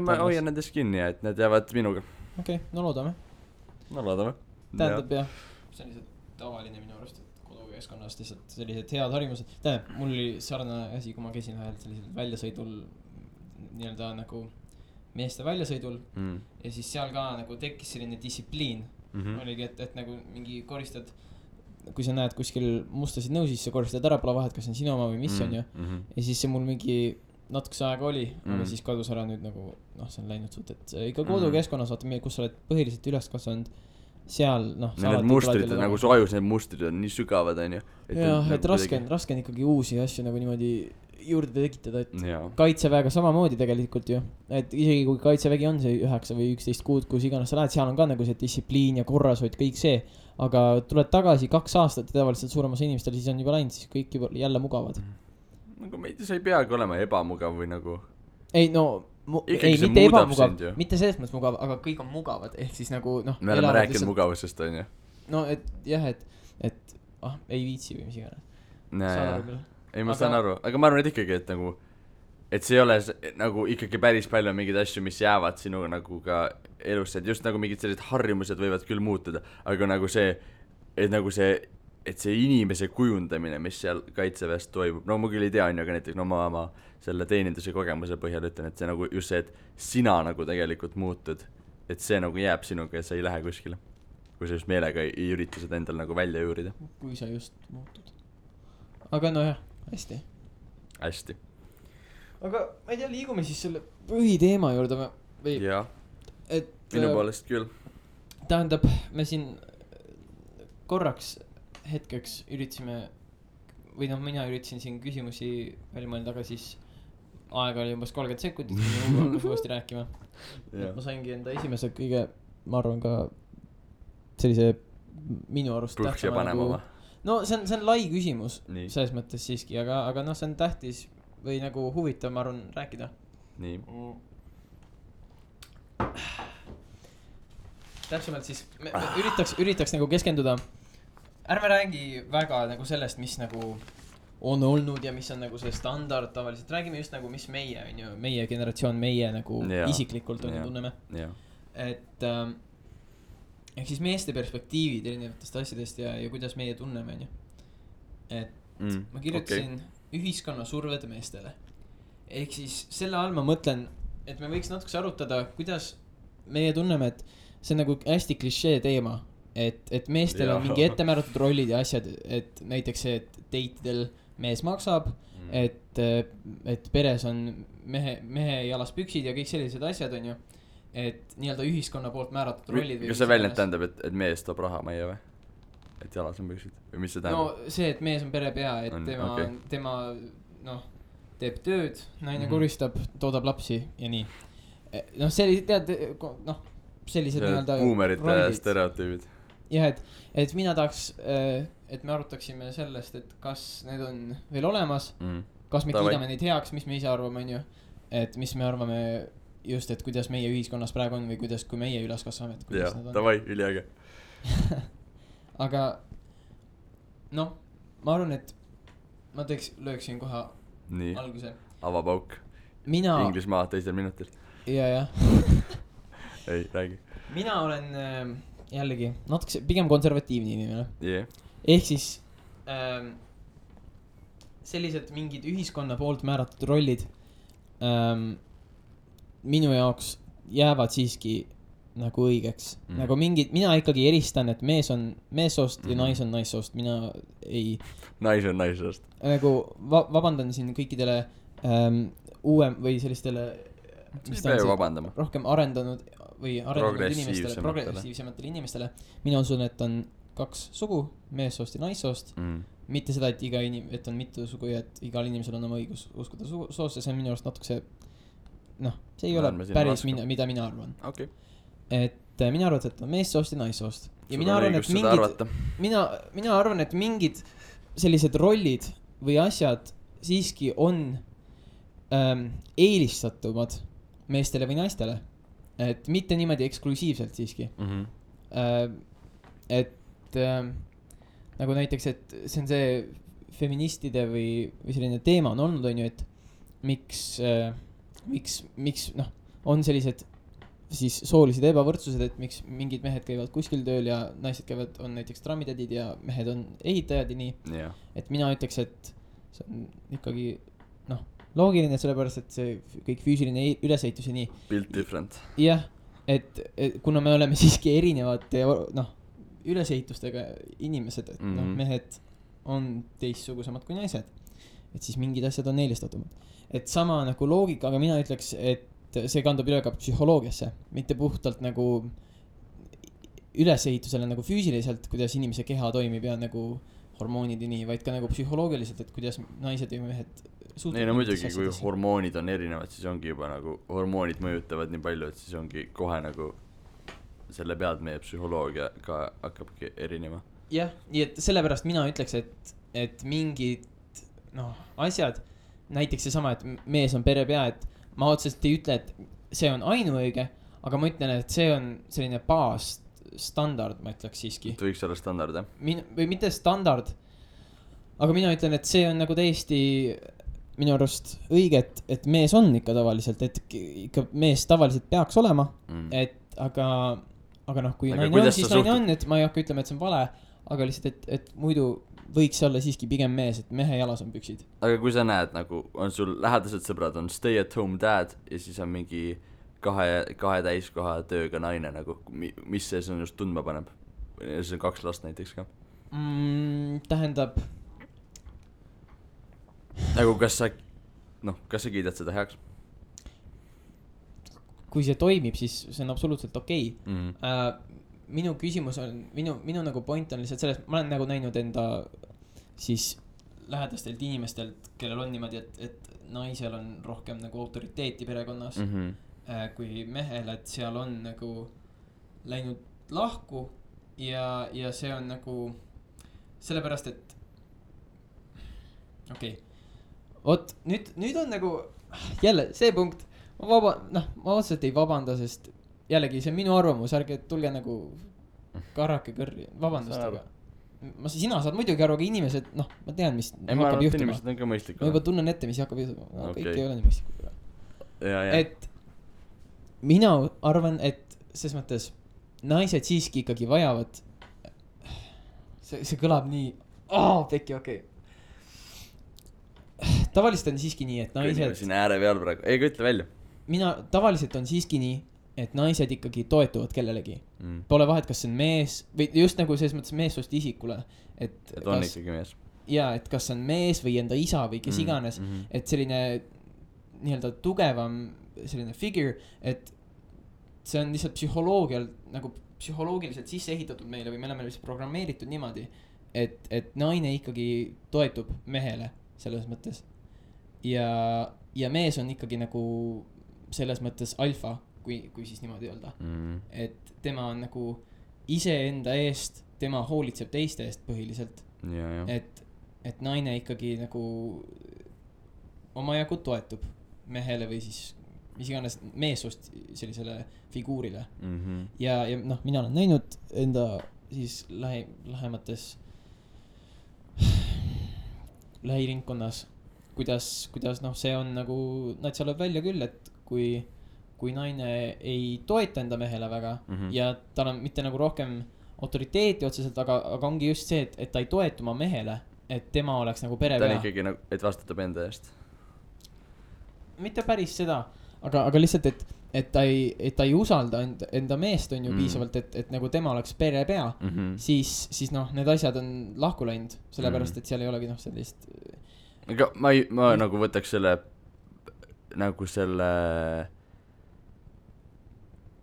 Ma hoian nendest kinni ja et need jäävad minuga.
Okei, no loodame. Tähendab jah, sellised tavaline minu arust, et kodukeskkonnast lihtsalt sellised head harjumused. Tähendab, mul oli sarnane asi, kui ma käisin vahel sellisel väljasõidul, nii-öelda nagu meeste väljasõidul ja siis seal ka nagu tekkis selline distsipliin. Oligi, et nagu mingi koristad, kui sa näed kuskil mustasid nõusid, sa koristad ära, pole vahet, kas on sinu oma või mis on ju. Ja siis see mul mingi natukese aega oli, aga siis kadus ära nüüd nagu, noh, see on läinud suht, et ikka kodukeskkonnas, vaata, kus sa oled põhiliselt üles kasvanud, seal, noh.
Need mustrid, nagu su ajus need mustrid on nii sügavad, on ju.
Jah, et raske on ikkagi uusi asju nagu niimoodi juurde tekitada, et kaitseväega samamoodi tegelikult ju, et isegi kui kaitsevägi on see 9 või 11 kuud, kus iganes sa lähed, seal on ka nagu see distsipliin ja korrashoid, kõik see, aga tuled tagasi 2 aastat ja tavaliselt suuremas inimestel siis on juba läinud, siis kõik juba jälle mugavad.
Nagu see ei peagi olema ebamugav või nagu
ei no mitte ebamugav, mitte selles mõttes mugav, aga kõik on mugavad, ehk siis nagu noh
me oleme rääkinud mugavusest, on ju
no et jah, et ei viitsi või mis iganes
ei ma saan aru, aga ma arvan, et ikkagi, et nagu et see ei ole nagu ikkagi päris palju mingeid asju, mis jäävad sinuga nagu ka elusse, et just nagu mingid sellised harjumused võivad küll muutuda, aga nagu see et see inimese kujundamine, mis seal kaitseväest toimub, no ma küll ei tea, aga näiteks no ma selle teeninduse kogemuse põhjal ütlen, et see nagu just see, et sina nagu tegelikult muutud, et see nagu jääb sinuga ja sa ei lähe kuskile, kui sa just meelega ei ürita seda endal nagu välja juurida.
Kui sa just muutud. Aga no jah, hästi. Aga ma ei tea, liigume siis selle põhiteema juurde või?
Jah, minu poolest küll.
Tähendab, me siin korraks hetkeks üritasime või noh, mina üritasin siin küsimusi välja mõelda, aga siis aega oli umbes 30 sekundit, kui ma uuesti rääkima. Ma saingi enda esimese kõige, ma arvan ka sellise minu arust
tähtsama nagu,
no see on lai küsimus selles mõttes siiski, aga noh, see on tähtis või nagu huvitav, ma arvan, rääkida. Nii. Täpsemalt siis me üritaks nagu keskenduda. Ärme räägi väga nagu sellest, mis nagu on olnud ja mis on nagu see standard tavaliselt, räägime just nagu mis meie on ju, meie generatsioon, meie nagu isiklikult on ju tunneme, et ehk siis meeste perspektiivid erinevatest asjadest ja kuidas meie tunneme on ju, et ma kirjutasin ühiskonna surved meestele, ehk siis selle all ma mõtlen, et me võiks natukese arutada, kuidas meie tunneme, et see on nagu hästi klišee teema, et meestel on mingi ettemääratud rollid ja asjad, et näiteks see, et date'idel mees maksab, et peres on mehe jalas püksid ja kõik sellised asjad on ju, et nii-öelda ühiskonna poolt määratud rollid.
Kas see väljend tähendab, et mees toob raha meie või? Et jalas on püksid või mis see tähendab?
No see, et mees on perepea, et tema noh, teeb tööd, naine koristab, toodab lapsi ja nii. Noh, tead, noh, sellised nii-öelda
boomerite stereotüübid.
Jah, et mina tahaks, et me arutaksime sellest, et kas need on veel olemas, kas me kiidame neid heaks, mis me ise arvame, on ju, et mis me arvame just, et kuidas meie ühiskonnas praegu on või kuidas, kui meie üles kasvame, et kuidas need on.
Davai, üliäge.
Aga noh, ma arvan, et ma lööksin kohe
nii,
alguse.
Avapauk. Inglismaa teisel minutil.
Ja.
Ei, räägi.
Mina olen jällegi natuke pigem konservatiivne inimene. Ehk siis sellised mingid ühiskonna poolt määratud rollid minu jaoks jäävad siiski nagu õigeks. Nagu mingid, mina ikkagi eristan, et mees on meessoost ja nais on naissoost. Mina ei...
Nais on naissoost.
Nagu vabandan siin kõikidele uuem või sellistele...
Mis ta on see
rohkem arendanud või arenenud inimestele, progressiivsematele inimestele. Mina usun, et on 2 sugu, meessoost ja naissoost. Mitte seda, et on mitu sugu ja et igal inimesel on oma õigus uskuda soost ja see on minu arust natuke see, noh, see ei ole päris mida mina arvan.
Okay.
Et mina arvan, et on meessoost ja naissoost. Ja mina arvan, et mingid sellised rollid või asjad siiski on eelistatumad meestele või naistele. Et mitte niimoodi eksklusiivselt siiski. Et nagu näiteks, et see on see feministide või selline teema on olnud, on ju, et miks noh, on sellised siis soolised ebavõrdsused, et miks mingid mehed käivad kuskil tööl ja naised käivad, on näiteks trammitädid ja mehed on ehitajad ja nii. Et mina ütleks, et see on ikkagi noh, loogiline, sellepärast, et see kõik füüsiline ülesehitus ja nii.
Built different.
Jah, et kuna me oleme siiski erinevate noh, ülesehitustega inimesed, et noh, mehed on teistsugusemad kui naised. Et siis mingid asjad on eelistatumad. Et sama nagu loogika, aga mina ütleks, et see kandub üle ka psühholoogiasse, mitte puhtalt nagu ülesehitusele nagu füüsiliselt, kuidas inimese keha toimib ja nagu hormoonid ja nii, vaid ka nagu psühholoogiliselt, et kuidas naised ja mehed
ei no muidugi, kui hormoonid on erinevad, siis ongi juba nagu hormoonid mõjutavad nii palju, et siis ongi kohe nagu selle pealt meie psühholoogia ka hakkabki erinema.
Jah, nii et sellepärast mina ütleks, et mingid noh, asjad, näiteks seesama, et mees on perepea, et ma otseselt ei ütle, et see on ainuõige, aga ma ütlen, et see on selline baasstandard, ma ütleks siiski.
See võiks olla standard, jah?
Või mitte standard, aga mina ütlen, et see on nagu täiesti minu arust õige, et mees on ikka tavaliselt, et ikka mees tavaliselt peaks olema, et aga noh, kui naine on, siis naine on, et ma ei hakka ütlema, et see on vale, aga lihtsalt, et muidu võiks olla siiski pigem mees, et mehe jalas on püksid.
Aga kui sa näed, nagu on sul lähedased sõbrad, on stay at home dad ja siis on mingi kahe täiskoha tööga naine, nagu mis see on just tundma paneb? See on 2 last näiteks ka.
Tähendab
nagu kas sa kiidad seda heaks?
Kui see toimib, siis see on absoluutselt okei. Minu küsimus on, minu nagu point on lihtsalt selles, ma olen nagu näinud enda siis lähedastelt inimestelt, kellel on niimoodi, et naisel on rohkem nagu autoriteeti perekonnas kui mehel, et seal on nagu läinud lahku ja see on nagu sellepärast, et okei. Oot, nüüd on nagu jälle see punkt, ma otseselt ei vabanda, sest jällegi see on minu arvamus, ärge tulge nagu karrake kõrri, vabandust, aga sina saad muidugi aru, aga inimesed, noh, ma tean, mis
hakkab juhtuma. Inimesed on ka mõistlikud.
Ma juba tunnen ette, mis hakkab juhtuma. No, kõik ei ole nii mõistlikud. Et mina arvan, et ses mõttes naised siiski ikkagi vajavad, see kõlab nii, pekki, okei. Tavaliselt on siiski nii, et naised...
Siin ääre peal praegu, ei ütle välja.
Tavaliselt on siiski nii, et naised ikkagi toetuvad kellelegi. Pole vahet, kas see on mees, või just nagu selles mõttes meessoost isikule. Et
on ikkagi mees.
Jaa, et kas on mees või enda isa või kes iganes, et selline nii-öelda tugevam selline figure, et see on lihtsalt psühholoogiliselt sisse ehitatud meile või me oleme lihtsalt programmeeritud niimoodi, et naine ikkagi toetub mehele selles mõttes. Ja mees on ikkagi nagu selles mõttes alfa, kui siis niimoodi öelda. Et tema on nagu iseenda eest, tema hoolitseb teiste eest põhiliselt. Et naine ikkagi nagu omajagu toetub mehele või siis mis iganes meessoost sellisele figuurile. Ja noh, mina olen näinud enda siis lähemates lähiringkonnas, kuidas noh, see on nagu, natsa lööb välja küll, et kui naine ei toeta enda mehele väga ja tal on mitte nagu rohkem autoriteeti otseselt, aga ongi just see, et ta ei toetu oma mehele, et tema oleks nagu perepea.
Ta on ikkagi nagu, et vastutab enda eest.
Mitte päris seda, aga lihtsalt, et ta ei usalda enda meest on ju piisavalt, et nagu tema oleks perepea, siis noh, need asjad on lahku läinud, sellepärast, et seal ei olegi noh sellist...
Aga ma nagu võtaks selle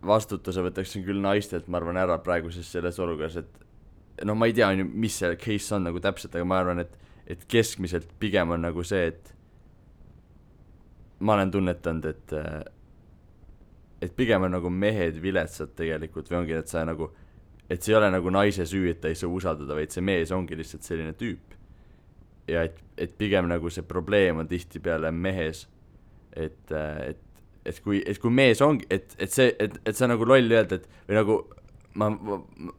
vastutuse võtaksin küll naistelt, ma arvan, ära praeguses selles olukorras, et noh, ma ei tea, mis see case on nagu täpselt, aga ma arvan, et keskmiselt pigem on nagu see, et ma olen tunnetanud, et pigem on nagu mehed viletsad tegelikult või ongi, et sa nagu, et see ei ole nagu naise süü, et ta ei saa usaldada, vaid see mees ongi lihtsalt selline tüüp. Ja et pigem nagu see probleem on tihti peale mehes, et kui mees ongi, et see nagu loll öelda, et või nagu ma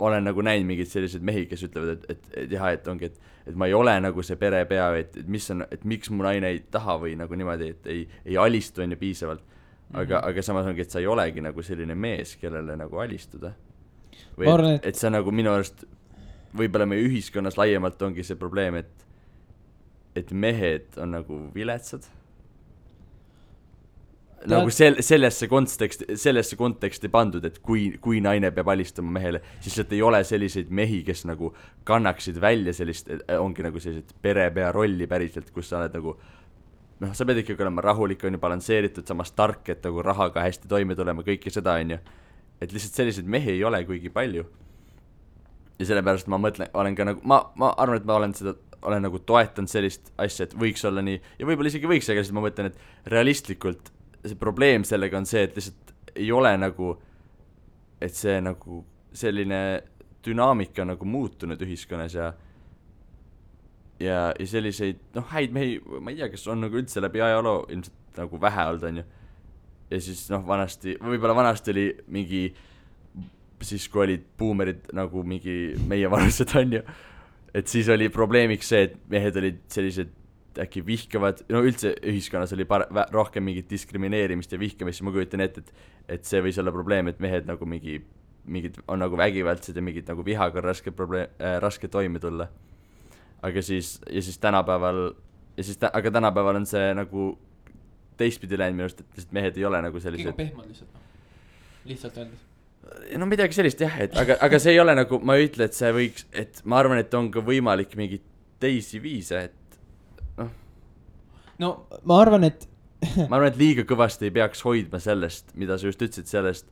olen nagu näinud mingid sellised mehi, kes ütlevad, et jah, et ongi, et ma ei ole nagu see perepea, et mis on, et miks mu naine ei taha või nagu niimoodi, et ei alistu enne piisavalt, aga samas ongi, et sa ei olegi nagu selline mees, kellele nagu alistuda. Või et see nagu minu arust võib-olla meie ühiskonnas laiemalt ongi see probleem, et mehed on nagu viletsad. Nagu sellesse konteksti pandud, et kui naine peab alistama mehele, siis et ei ole selliseid mehi, kes nagu kannaksid välja sellist, ongi nagu sellised perepea rolli päriselt, kus sa oled nagu, noh, sa pead ikkagi olema rahulik, on ju, balansseeritud, samas tark, et nagu rahaga hästi toime tulema, kõike seda, on ju. Et lihtsalt selliseid mehi ei ole kuigi palju. Ja sellepärast ma mõtlen, olen ka nagu, ma arvan, et ma olen nagu toetanud sellist asja, et võiks olla nii, ja võib-olla isegi võiks, aga siis ma mõtlen, et realistlikult see probleem sellega on see, et lihtsalt ei ole nagu, et see nagu selline dünaamika nagu muutunud ühiskonnas ja selliseid, noh, häid mehi, ma ei tea, kes on nagu üldse läbi ajaloo ilmselt nagu vähe olnud, on ju. Ja siis, noh, võib-olla vanasti oli mingi, siis kui olid buumerid nagu mingi meie vanused, on ju, et siis oli probleemiks see, et mehed olid sellised äkki vihkavad, no üldse ühiskonnas oli rohkem mingit diskrimineerimist ja vihkamist, ma kujutan ette, et see võis olla probleem, et mehed nagu mingid on nagu vägivaldsed ja mingid nagu vihaga raske toime tulla. Aga siis tänapäeval aga tänapäeval on see nagu teistpidi läinud minu arust, et mehed ei ole nagu sellised
kõige pehmad lihtsalt öeldes.
No midagi sellist jah, aga see ei ole nagu, ma ei ütle, et see võiks, et ma arvan, et on ka võimalik mingid teisi viise, et
no ma arvan, et
liiga kõvasti ei peaks hoidma sellest, mida sa just ütlesid, sellest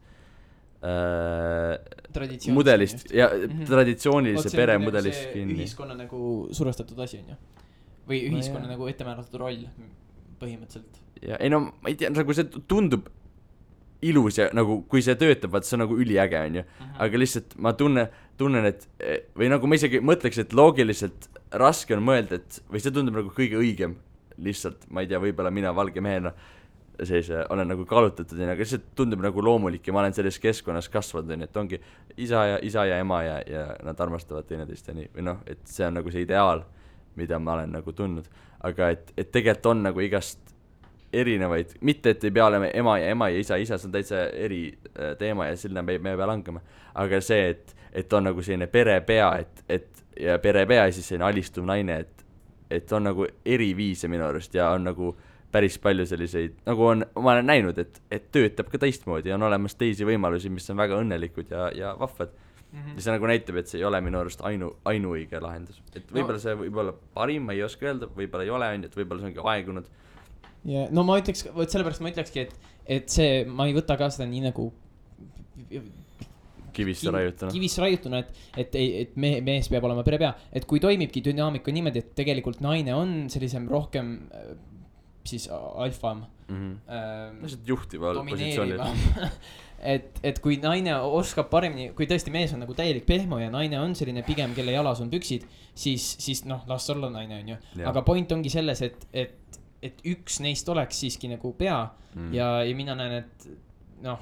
mudelist ja traditsioonilise peremudelist kinni.
Ühiskonna nagu survestatud asi on ju. Või ühiskonna nagu ettemääratud roll põhimõtteliselt.
Ja ei no, ma ei tea, nagu see tundub ilus ja nagu, kui see töötab, vaat see on nagu üliäge on ju. Aga lihtsalt ma tunnen, et või nagu ma isegi mõtleks, et loogiliselt raske on mõelda, et või see tundub nagu kõige õigem lihtsalt, ma ei tea, võib-olla mina valge mehena olen nagu kallutatud, aga see tundub nagu loomulik ja ma olen selles keskkonnas kasvanud, et ongi isa ja ema ja nad armastavad teineteist ja nii, või noh, et see on nagu see ideaal, mida ma olen nagu tundnud, aga et tegelikult on nagu igast erinevaid, mitte et ei pea olema ema ja isa, see on täitsa eri teema ja sinna me ei pea langema, aga see, et on nagu selline perepea, ja perepea ja siis selline alistuv naine, et on nagu eri viise minu arust ja on nagu päris palju selliseid, nagu ma olen näinud, et töötab ka teistmoodi ja on olemas teisi võimalusi, mis on väga õnnelikud ja vahvad. Ja see nagu näitab, et see ei ole minu arust ainuõige lahendus. Et võib-olla see võib olla parim, ma ei oska öelda, võib-olla ei ole, et võib-olla see ongi aegunud.
Ja, no ma ütleks, sellepärast ma ütlekski, et see, ma ei võta ka seda nii nagu
kivisse
raiutuna, et mees peab olema perepea. Et kui toimibki dünaamika niimoodi, et tegelikult naine on sellisem rohkem siis alfam
juhtival positsioonil
et kui naine oskab paremini, kui tõesti mees on nagu täielik pehmo ja naine on selline pigem, kelle jalas on püksid, siis noh, las olla naine on ju. Aga point ongi selles, et üks neist oleks siiski nagu pea ja mina näen, et noh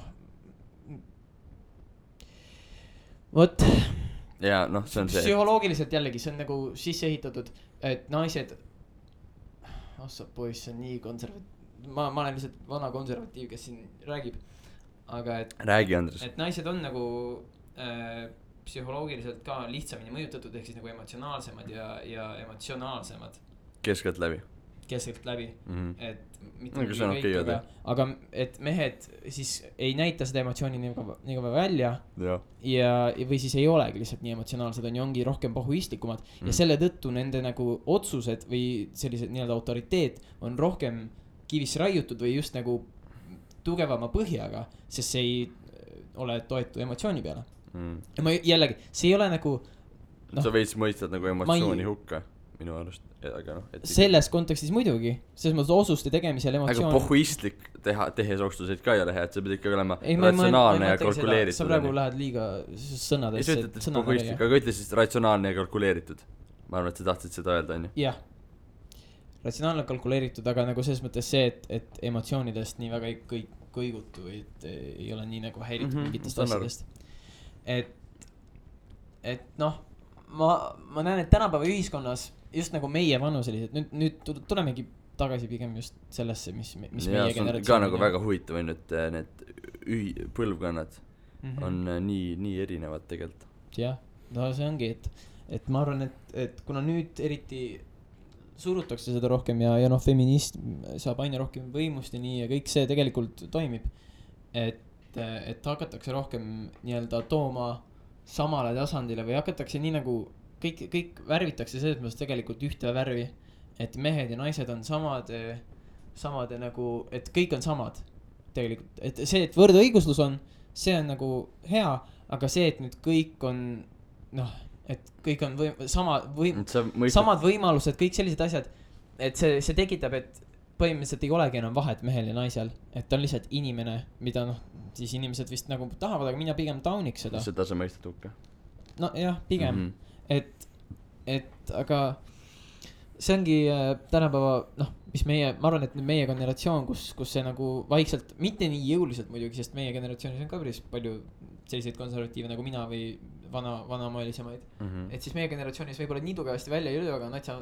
vot
ja noh, see on see
psühholoogiliselt jällegi, see on nagu sisse ehitatud, et naised ossa poiss, see on nii ma olen lihtsalt vana konservatiiv, kes siin räägib, aga
räägi, Andres.
Et naised on nagu psühholoogiliselt ka lihtsamini mõjutatud, ehk siis nagu emotsionaalsemad ja emotsionaalsemad
keskelt läbi,
et mitte kõik, aga et mehed siis ei näita seda emotsiooni nii väga välja ja või siis ei olegi lihtsalt nii emotsionaalsed, ongi rohkem pahuistlikumad ja selle tõttu nende nagu otsused või sellised nii-öelda autoriteet on rohkem kivisse raiutud või just nagu tugevama põhjaga, sest see ei ole toetu emotsiooni peale. Ja ma jällegi, see ei ole nagu
sa veits mõistad nagu emotsiooni hukka minu arust, aga noh
selles kontekstis muidugi, selles mõttes osuste tegemisel emotsioon
aga pohhuistlik tehes otsuseid ka ei ole hea, et see peab ikka olema ratsionaalne ja kalkuleeritud
sa praegu lähed liiga sõnadesse
aga ütle siis ratsionaalne ja kalkuleeritud, ma arvan, et sa tahtsid seda öelda, on ju?
Jah, ratsionaalne kalkuleeritud, aga nagu selles mõttes see, et emotsioonidest nii väga ei kõigutu või et ei ole nii nagu häiritud mingitest asjadest, et noh ma näen, et tänapäeva ühiskonnas just nagu meie vanuselised, nüüd tulemegi tagasi pigem just sellesse, mis meie generatsioon
ka nagu väga huvitav on, et need põlvkonnad on nii erinevad tegelikult.
Jah, no see ongi, et ma arvan, et kuna nüüd eriti surutakse seda rohkem ja noh, feminism saab aina rohkem võimust ja nii ja kõik see tegelikult toimib, et hakatakse rohkem nii-öelda tooma samale tasandile või hakatakse nii nagu kõik värvitakse selles mõttes tegelikult ühte värvi, et mehed ja naised on samade nagu, et kõik on samad tegelikult, et see, et võrdõiguslus on, see on nagu hea, aga see, et nüüd kõik on noh, et kõik on samad võimalused, kõik sellised asjad, et see tekitab, et põhimõtteliselt ei olegi enam vahet mehel ja naisel, et ta on lihtsalt inimene, mida noh, siis inimesed vist nagu tahavad, aga mina pigem tauniks seda.
Seda sa mõistad hukka?
No jah, pigem, et aga see ongi tänapäeva, noh, mis ma arvan, et meie generatsioon, kus see nagu vaikselt, mitte nii jõuliselt muidugi, sest meie generatsioonis on ka päris palju selliseid konservatiive nagu mina või vanamaaelisemaid, et siis meie generatsioonis võib-olla nii tugevasti välja ei jõu, aga natsa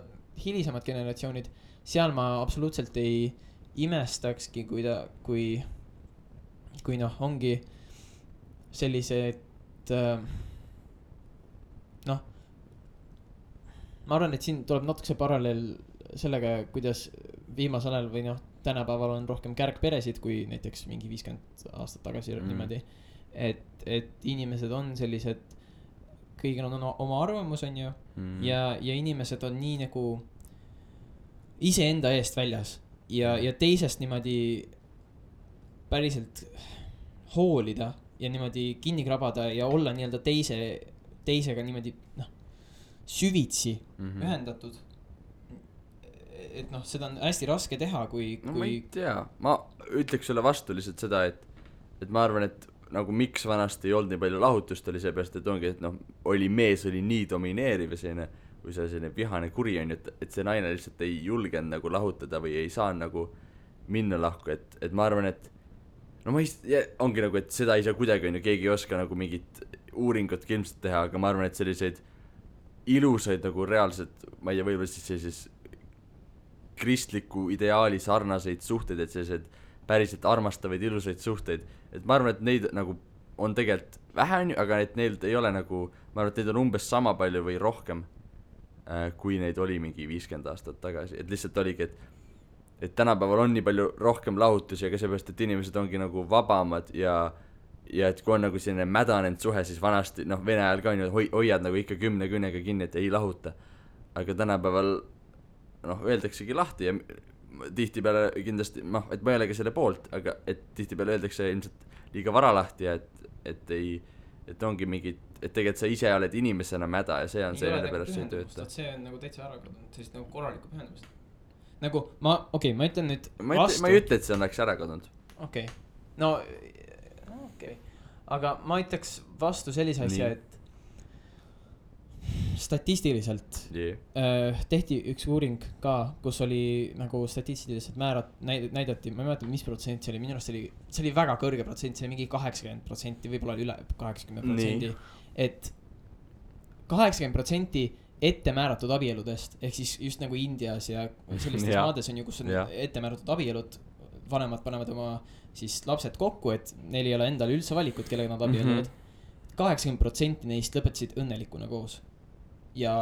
hilisemad generatsioonid, seal ma absoluutselt ei imestakski, kui noh, ongi sellised noh, ma arvan, et siin tuleb natuke see paralleel sellega, kuidas viimasel ajal või noh, tänapäeval on rohkem kärgperesid kui näiteks mingi 50 aastat tagasi niimoodi, et inimesed on sellised, kõigil on oma arvamus on ju ja inimesed on nii nagu iseenda eest väljas ja teisest niimoodi päriselt hoolida ja niimoodi kinni krabada ja olla nii-öelda teisega niimoodi noh, süvitsi ühendatud. Et noh, seda on hästi raske teha, kui
ma ei tea, ma ütleks sulle vastu lihtsalt seda, et ma arvan, et nagu miks vanasti ei olnud nii palju lahutust oli seepärast, et ongi, et noh, mees oli nii domineeriv ja selline, või see selline vihane kuri on, et see naine lihtsalt ei julgenud nagu lahutada või ei saa nagu minna lahku, et ma arvan, et no ongi nagu, et seda ei saa kuidagi, on ju, keegi ei oska nagu mingit uuringut ilmselt teha, aga ma arvan, et selliseid ilusaid nagu reaalselt, ma ei tea, võib-olla siis sellises kristliku ideaali sarnaseid suhteid, et sellised päriselt armastavaid ilusaid suhteid, et ma arvan, et neid nagu on tegelikult vähe, aga et neil ei ole nagu, ma arvan, et neid on umbes sama palju või rohkem, kui neid oli mingi 50 aastat tagasi, et lihtsalt oligi, et tänapäeval on nii palju rohkem lahutusi, aga seepärast, et inimesed ongi nagu vabamad ja et kui on nagu selline mädanenud suhe, siis vanasti, noh, Vene ajal ka on ju, hoiad nagu ikka 10 küünega kinni, et ei lahuta, aga tänapäeval noh, öeldaksegi lahti ja tihtipeale kindlasti, noh, et ma ei ole ka selle poolt, aga et tihtipeale öeldakse ilmselt liiga vara lahti ja et ongi mingid, et tegelikult sa ise oled inimesena mäda ja see on see, mille pärast see ei tööta.
See on nagu täitsa ära kadunud, sellist nagu korralikku pühendumist. Nagu ma ütlen nüüd
vastu. Ma ei ütle, et see oleks ära kadunud.
Okei. No okei. Aga ma ütleks vastu sellise asja, et statistiliselt tehti üks uuring ka, kus oli nagu statistiliselt näidati, ma ei mäleta, mis protsent see oli, minu arust see oli väga kõrge protsent, see oli mingi 80%, võib-olla oli üle 80%, et 80% ette määratud abieludest, ehk siis just nagu Indias ja sellistes maades on ju, kus on ette määratud abielud, vanemad panevad oma siis lapsed kokku, et neil ei ole endal üldse valikut, kellega nad abielluvad. 80% neist lõpetasid õnnelikuna koos. Ja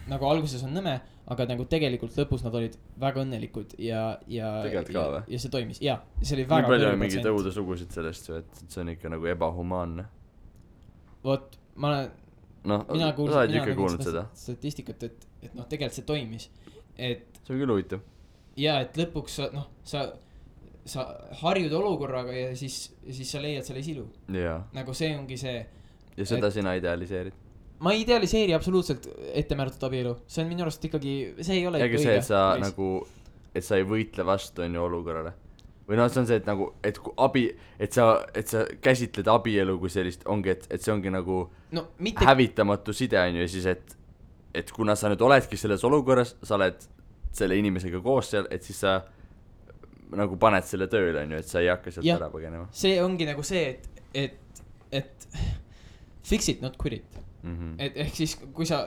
nagu alguses on nõme, aga nagu tegelikult lõpus nad olid väga õnnelikud ja see toimis. Ja, see oli väga
kõrge protsent. Mingi tõude sugusid sellest, et see on ikka nagu ebahumaanne.
Vot, mina kuulnud seda statistikat, et noh, tegelikult see toimis.
See on küll huvitav.
Ja, et lõpuks sa harjud olukorraga ja siis sa leiad selle silu. Nagu see ongi see.
Ja seda sina idealiseerid?
Ma ei idealiseeri absoluutselt ettemääratud abielu. See on minu arust ikkagi, see ei ole
ikka õige. Ega see, et sa nagu, et sa ei võitle vastu on ju olukorrale. Või noh, see on see, et nagu, et sa käsitled abielu kui sellist, ongi, et see ongi nagu hävitamatu side on ju, ja siis, et kuna sa nüüd oledki selles olukorras, sa oled selle inimesega koos seal, et siis sa nagu paned selle tööle on ju, et sa ei hakka sealt ära põgenema.
See ongi nagu see, et fix it, not quit it. Et ehk siis kui sa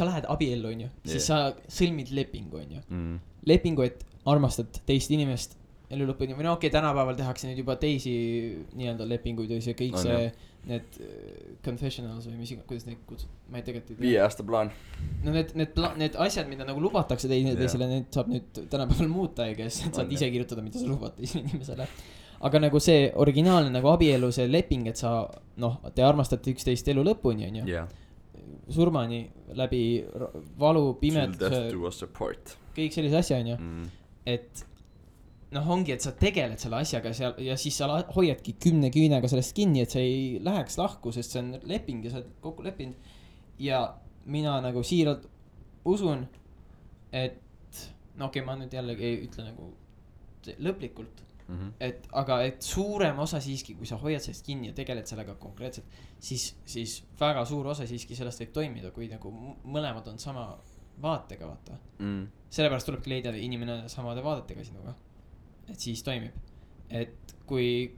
lähed abiellu on ju, siis sa sõlmid lepingu on ju. Lepingu, et armastad teist inimest elu lõpuni, või no okei, tänapäeval tehakse nüüd juba teisi nii-öelda lepinguid ja see kõik need confessionals või kuidas neid kutsud, ma ei tegelikult
5 aasta plaan.
No need asjad, mida nagu lubatakse teisele, need saab nüüd tänapäeval muuta ja kes saad ise kirjutada, mida sa lubad teisele inimesele. Aga nagu see originaalne nagu abielu, see leping, et sa, noh, te armastate üksteist elu lõpuni, on ju. Surmani läbi valu, pimeduse, kõik sellise asja, on ju. Et noh, ongi, et sa tegeled selle asjaga seal ja siis sa hoiadki 10 küünega sellest kinni, et sa ei läheks lahku, sest see on leping ja sa oled kokku leppinud. Ja mina nagu siiralt usun, et no okei, ma nüüd jällegi ei ütle nagu lõplikult. Aga suurem osa siiski, kui sa hoiad sellest kinni ja tegeled sellega konkreetselt, siis väga suur osa siiski sellest võib toimida, kui nagu mõlemad on sama vaatega, vaata. Sellepärast tulebki leida inimene samade vaadetega sinuga, et siis toimib. Et kui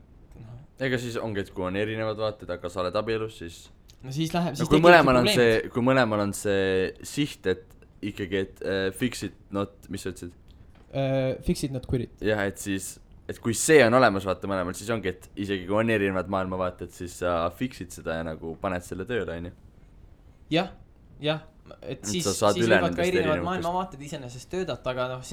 ega siis ongi, et kui on erinevad vaated, aga sa oled abielus, siis
no siis läheb,
siis kui mõlemal on see siht, et ikkagi, et fix it, not, mis sa ütlesid?
Fix it, not quit it.
Jah, et siis et kui see on olemas, vaata mõlemal, siis ongi, et isegi kui on erinevad maailmavaated, siis sa fixid seda ja nagu paned selle tööle, on ju.
jah, et siis võivad ka erinevad maailmavaated iseenesest töödata, aga noh,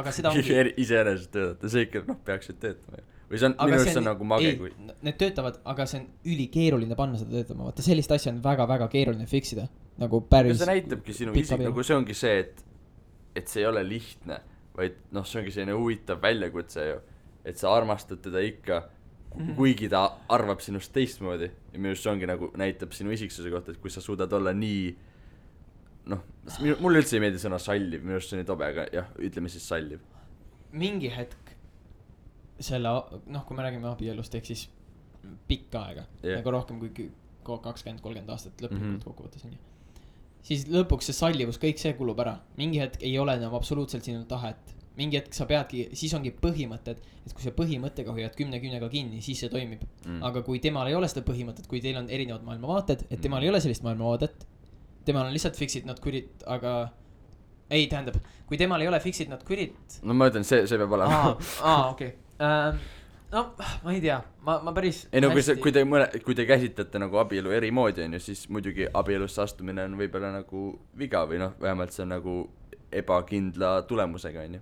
aga seda ongi
iseenesest töödata, see ikka, noh, peaksid töötama. Või see on, minu arust see on nagu mage, kui
need töötavad, aga see on ülikeeruline panna seda töötama, vaata sellist asja on väga-väga keeruline fixida, nagu päris.
See näitabki sinu isik, nagu see ongi see, et see ei ole lihtne, vaid noh, see ongi selline huvitav väljakutse ju. Et sa armastad teda ikka, kuigi ta arvab sinust teistmoodi. Ja minu arust see ongi nagu näitab sinu isiksuse kohta, et kui sa suudad olla nii, noh, mulle üldse ei meeldi sõna salliv, minu arust see on nii tobe, aga jah, ütleme siis salliv.
Mingi hetk selle, noh, kui me räägime abielust, ehk siis pikka aega, nagu rohkem kui 20-30 aastat lõplikult kokkuvõttes on ju. Siis lõpuks see sallivus, kõik see kulub ära. Mingi hetk ei ole enam absoluutselt sinu tahet mingi hetk sa peadki, siis ongi põhimõtted, et kui sa põhimõttega hoiad 10 kinni, siis see toimib. Aga kui temal ei ole seda põhimõtet, kui teil on erinevad maailmavaated, et temal ei ole sellist maailmavaadet, temal on lihtsalt fix it not quit it, aga ei, tähendab, kui temal ei ole fix it not quit it.
No ma ütlen, see peab olema.
Okei. No, ma ei tea, ma päris
ei no kui te käsitlete nagu abielu eri moodi on ju, siis muidugi abielusse astumine on võib-olla nagu viga või noh, vähemalt see on nagu ebakindla tulemusega on ju.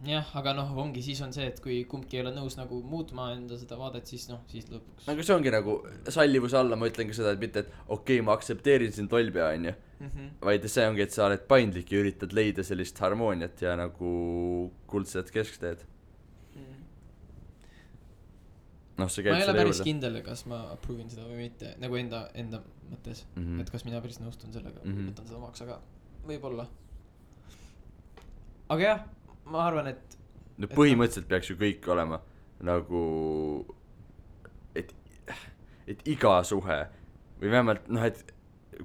Jah, aga noh, ongi, siis on see, et kui kumbki ei ole nõus nagu muutma enda seda vaadet, siis noh, siis lõpuks.
Aga see ongi nagu sallivuse alla, ma ütlen ka seda, et mitte, et okei, ma aktsepteerin siin tolbja on ju, vaid see ongi, et sa oled paindlik ja üritad leida sellist harmooniat ja nagu kuldset keskteed. No, ma
ei ole päris kindel, kas ma approve'in seda või mitte, nagu enda mõttes, et kas mina päris nõustun sellega, võtan seda omaks, aga võib-olla. Aga jah, ma arvan, et
no põhimõtteliselt peaks ju kõik olema nagu et iga suhe või vähemalt noh, et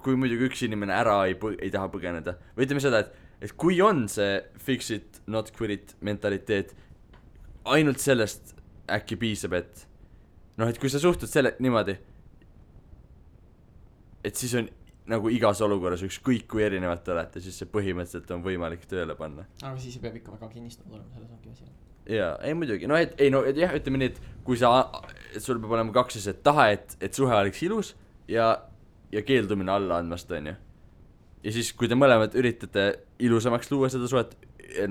kui muidugi üks inimene ära ei taha põgeneda või ütleme seda, et kui on see fix it, not quit it mentaliteet, ainult sellest äkki piisab, et noh, et kui sa suhtud selle niimoodi, et siis on nagu igas olukorras ükskõik kui erinevalt olete, siis see põhimõtteliselt on võimalik tööle panna.
Aga siis peab ikka väga kinnistunud olema, selles ongi asi.
Jaa, ei muidugi, no et jah, ütleme nii, et kui et sul peab olema kaks asjad, taha, et suhe oleks ilus ja keeldumine alla andmast, on ju. Ja siis, kui te mõlemad üritate ilusamaks luua seda suhet,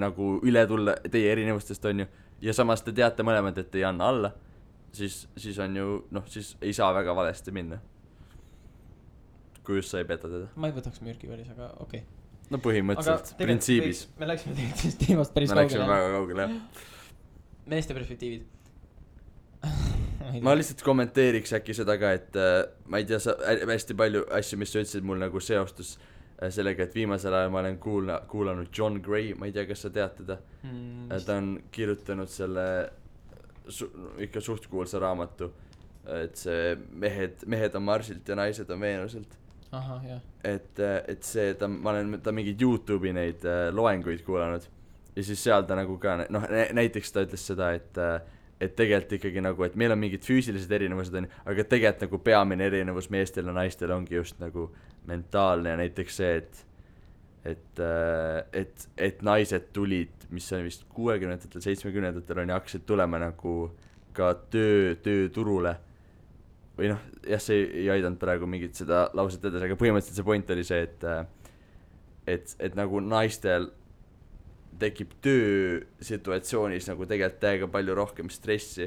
nagu üle tulla teie erinevustest, on ju, ja samas te teate mõlemad, et ei anna alla, siis on ju, noh, siis ei saa väga valesti minna. Kui just sa ei peta teda.
Ma ei võtaks mürki päris, aga okei.
No põhimõtteliselt, printsiibis.
Me läksime tegelikult teemast päris kaugele.
Me läksime väga kaugele, jah.
Meeste perspektiivid.
Ma lihtsalt kommenteeriks äkki seda ka, et ma ei tea, hästi palju asju, mis sa ütlesid mul nagu seostus sellega, et viimasel ajal ma olen kuulanud John Gray, ma ei tea, kas sa tead teda. Ta on kirjutanud selle ikka suhtkuulsa raamatu, et see mehed on Marsilt ja naised on Veenuselt.
Aha, jah.
Et see, ma olen mingeid YouTube'i neid loenguid kuulanud ja siis seal ta nagu ka, noh, näiteks ta ütles seda, et tegelikult ikkagi nagu, et meil on mingid füüsilised erinevused, aga tegelikult nagu peamine erinevus meestel ja naistel ongi just nagu mentaalne ja näiteks see, et naised tulid, mis on vist 60-ndatel, 70-ndatel on ja hakkasid tulema nagu ka tööturule või noh, jah, see ei aidanud praegu mingit seda lauset edasi, aga põhimõtteliselt see point oli see, et nagu naistel tekib töösituatsioonis nagu tegelikult täiega palju rohkem stressi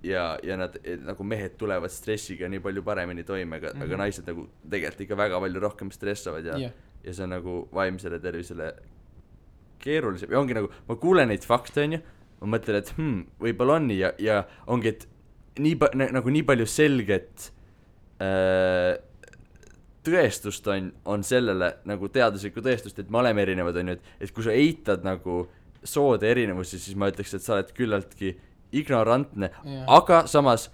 ja nad nagu mehed tulevad stressiga nii palju paremini toime, aga naised nagu tegelikult ikka väga palju rohkem stressavad ja see on nagu vaimsele tervisele keerulisem ja ongi nagu, ma kuulen neid fakte on ju, ma mõtlen, et võib-olla on nii ja ongi, et nii palju selget tõestust on sellele nagu teaduslikku tõestust, et me oleme erinevad on ju, et kui sa eitad nagu soode erinevusi, siis ma ütleks, et sa oled küllaltki ignorantne, aga samas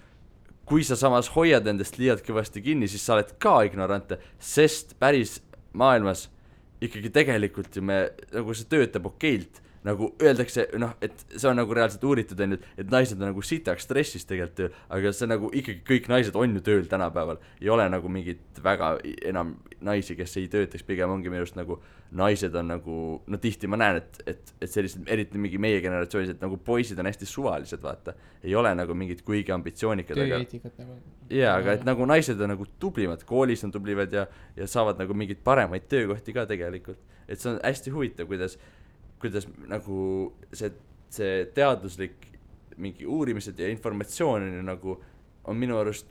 kui sa samas hoiad endast liialt kõvasti kinni, siis sa oled ka ignorantne, sest päris maailmas ikkagi tegelikult ju nagu see töötab okeilt, nagu öeldakse, noh, et see on nagu reaalselt uuritud, et naised on nagu sitaks stressis tegelikult tööl, aga see nagu ikkagi kõik naised on ju tööl tänapäeval, ei ole nagu mingit väga enam naisi, kes ei töötaks, pigem ongi minu arust nagu naised on nagu, no tihti ma näen, et sellised, eriti mingi meie generatsioonis, et nagu poisid on hästi suvalised, vaata, ei ole nagu mingid kuigi ambitsioonikad,
nagu
jaa, aga et nagu naised on nagu tublimad, koolis on tublivad ja saavad nagu mingeid paremaid töökohti ka tegelikult, et see on hästi huvitav, kuidas nagu see teaduslik mingi uurimised ja informatsioon nagu on minu arust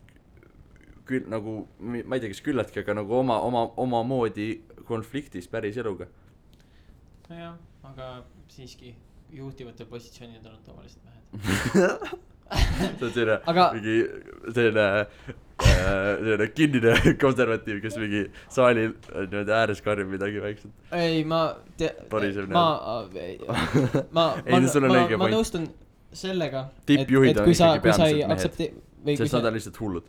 küll nagu, ma ei tea, kas küllaltki, aga nagu oma moodi konfliktis päris eluga.
Jah, aga siiski juhtivatel positsioonidel on tavaliselt mehed.
See on selline kinnine konservatiiv, kes mingi saalil ääres karjub midagi väikselt.
Ei, ma nõustun sellega,
tippjuhid on ikkagi
peamiselt mehed,
sest nad on lihtsalt hullud.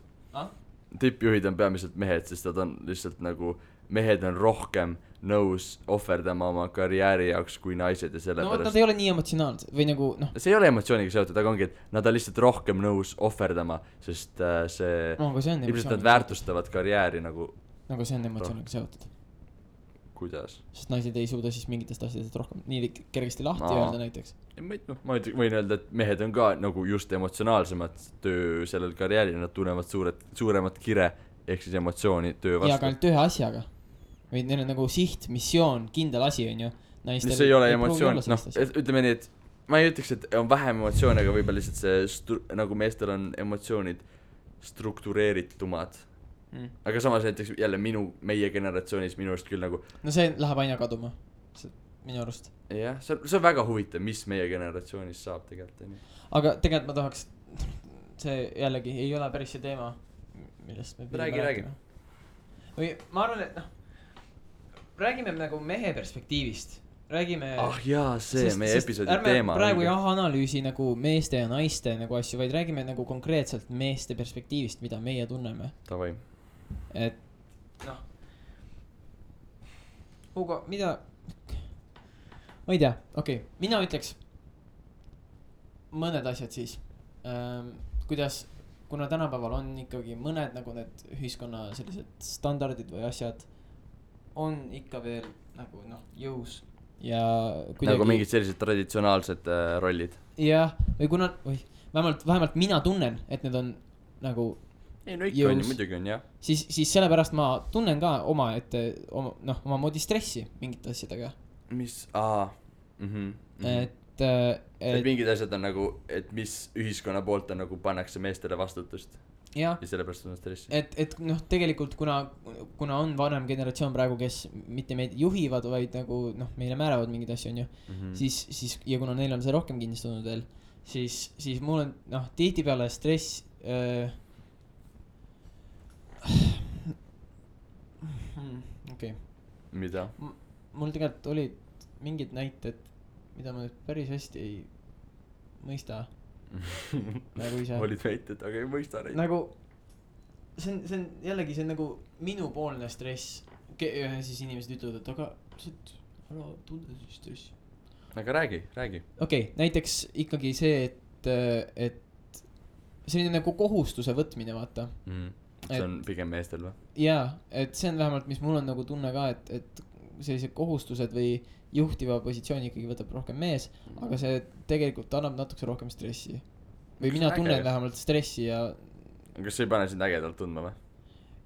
tippjuhid on peamiselt mehed, sest nad on lihtsalt nagu, mehed on rohkem nõus ohverdama oma karjääri jaoks kui naised ja sellepärast.
No nad ei ole nii emotsionaalsed või nagu noh.
See ei ole emotsiooniga seotud, aga ongi, et nad on lihtsalt rohkem nõus ohverdama, sest see ilmselt nad väärtustavad karjääri nagu.
Nagu see on emotsiooniga seotud.
Kuidas?
Sest naised ei suuda siis mingitest asjadest rohkem nii kergesti lahti öelda näiteks.
Ma võin öelda, et mehed on ka nagu just emotsionaalsemad töö sellel karjääril, nad tunnevad suuremat kire ehk siis emotsiooni töö vastu.
Ja ka ainult ühe asjaga. Või neil on nagu siht, missioon, kindel asi on ju.
See ei ole emotsioon, ütleme nii, et ma ei ütleks, et on vähem emotsioone, aga võib-olla lihtsalt see, nagu meestel on emotsioonid struktureeritumad. Aga samas näiteks jälle meie generatsioonis minu arust küll nagu
no see läheb aina kaduma minu arust.
Jah, see on väga huvitav, mis meie generatsioonis saab tegelikult.
Aga tegelikult ma tahaks, see jällegi ei ole päris see teema, millest me
räägi.
Või ma arvan, et räägime nagu mehe perspektiivist. Räägime
jaa, see meie episoodi teema.
Ärme praegu analüüsi nagu meeste ja naiste nagu asju, vaid räägime nagu konkreetselt meeste perspektiivist, mida meie tunneme.
Tavai.
Et noh Hugo, mida ma ei tea, okei. Mina ütleks mõned asjad siis kuidas, kuna tänapäeval on ikkagi mõned nagu need ühiskonna sellised standardid või asjad on ikka veel nagu jõus ja kuidagi
nagu mingid sellised traditsionaalsed rollid.
Jah, või kuna vähemalt mina tunnen, et need on nagu
ei, no ikka on, muidugi on, jah.
Siis sellepärast ma tunnen ka oma moodi stressi mingite asjadega.
Mis,
Et
mingid asjad on nagu, et mis ühiskonna poolt on nagu pannakse meestele vastutust. Ja sellepärast on stressi.
Et tegelikult kuna on vanem generatsioon praegu, kes mitte meid juhivad, vaid nagu meile määravad mingid asju, on ju, siis ja kuna neil on see rohkem kinnistunud veel, siis mul on tihtipeale stress okei.
Mida?
Mul tegelikult olid mingid näited, mida ma nüüd päris hästi ei mõista. Nagu ise.
Olid väited, aga ei mõista neid.
Nagu see on jällegi see on nagu minupoolne stress. Siis inimesed ütlevad, et aga ära tunde siis stressi.
Aga räägi.
Okei, näiteks ikkagi see, et selline nagu kohustuse võtmine, vaata.
See on pigem meestel või?
Jaa, et see on vähemalt, mis mul on nagu tunne ka, et sellised kohustused või juhtiva positsiooni ikkagi võtab rohkem mees, aga see tegelikult annab natuke rohkem stressi. Või mina tunnen vähemalt stressi ja
kas see ei pane sind ägedalt tundma või?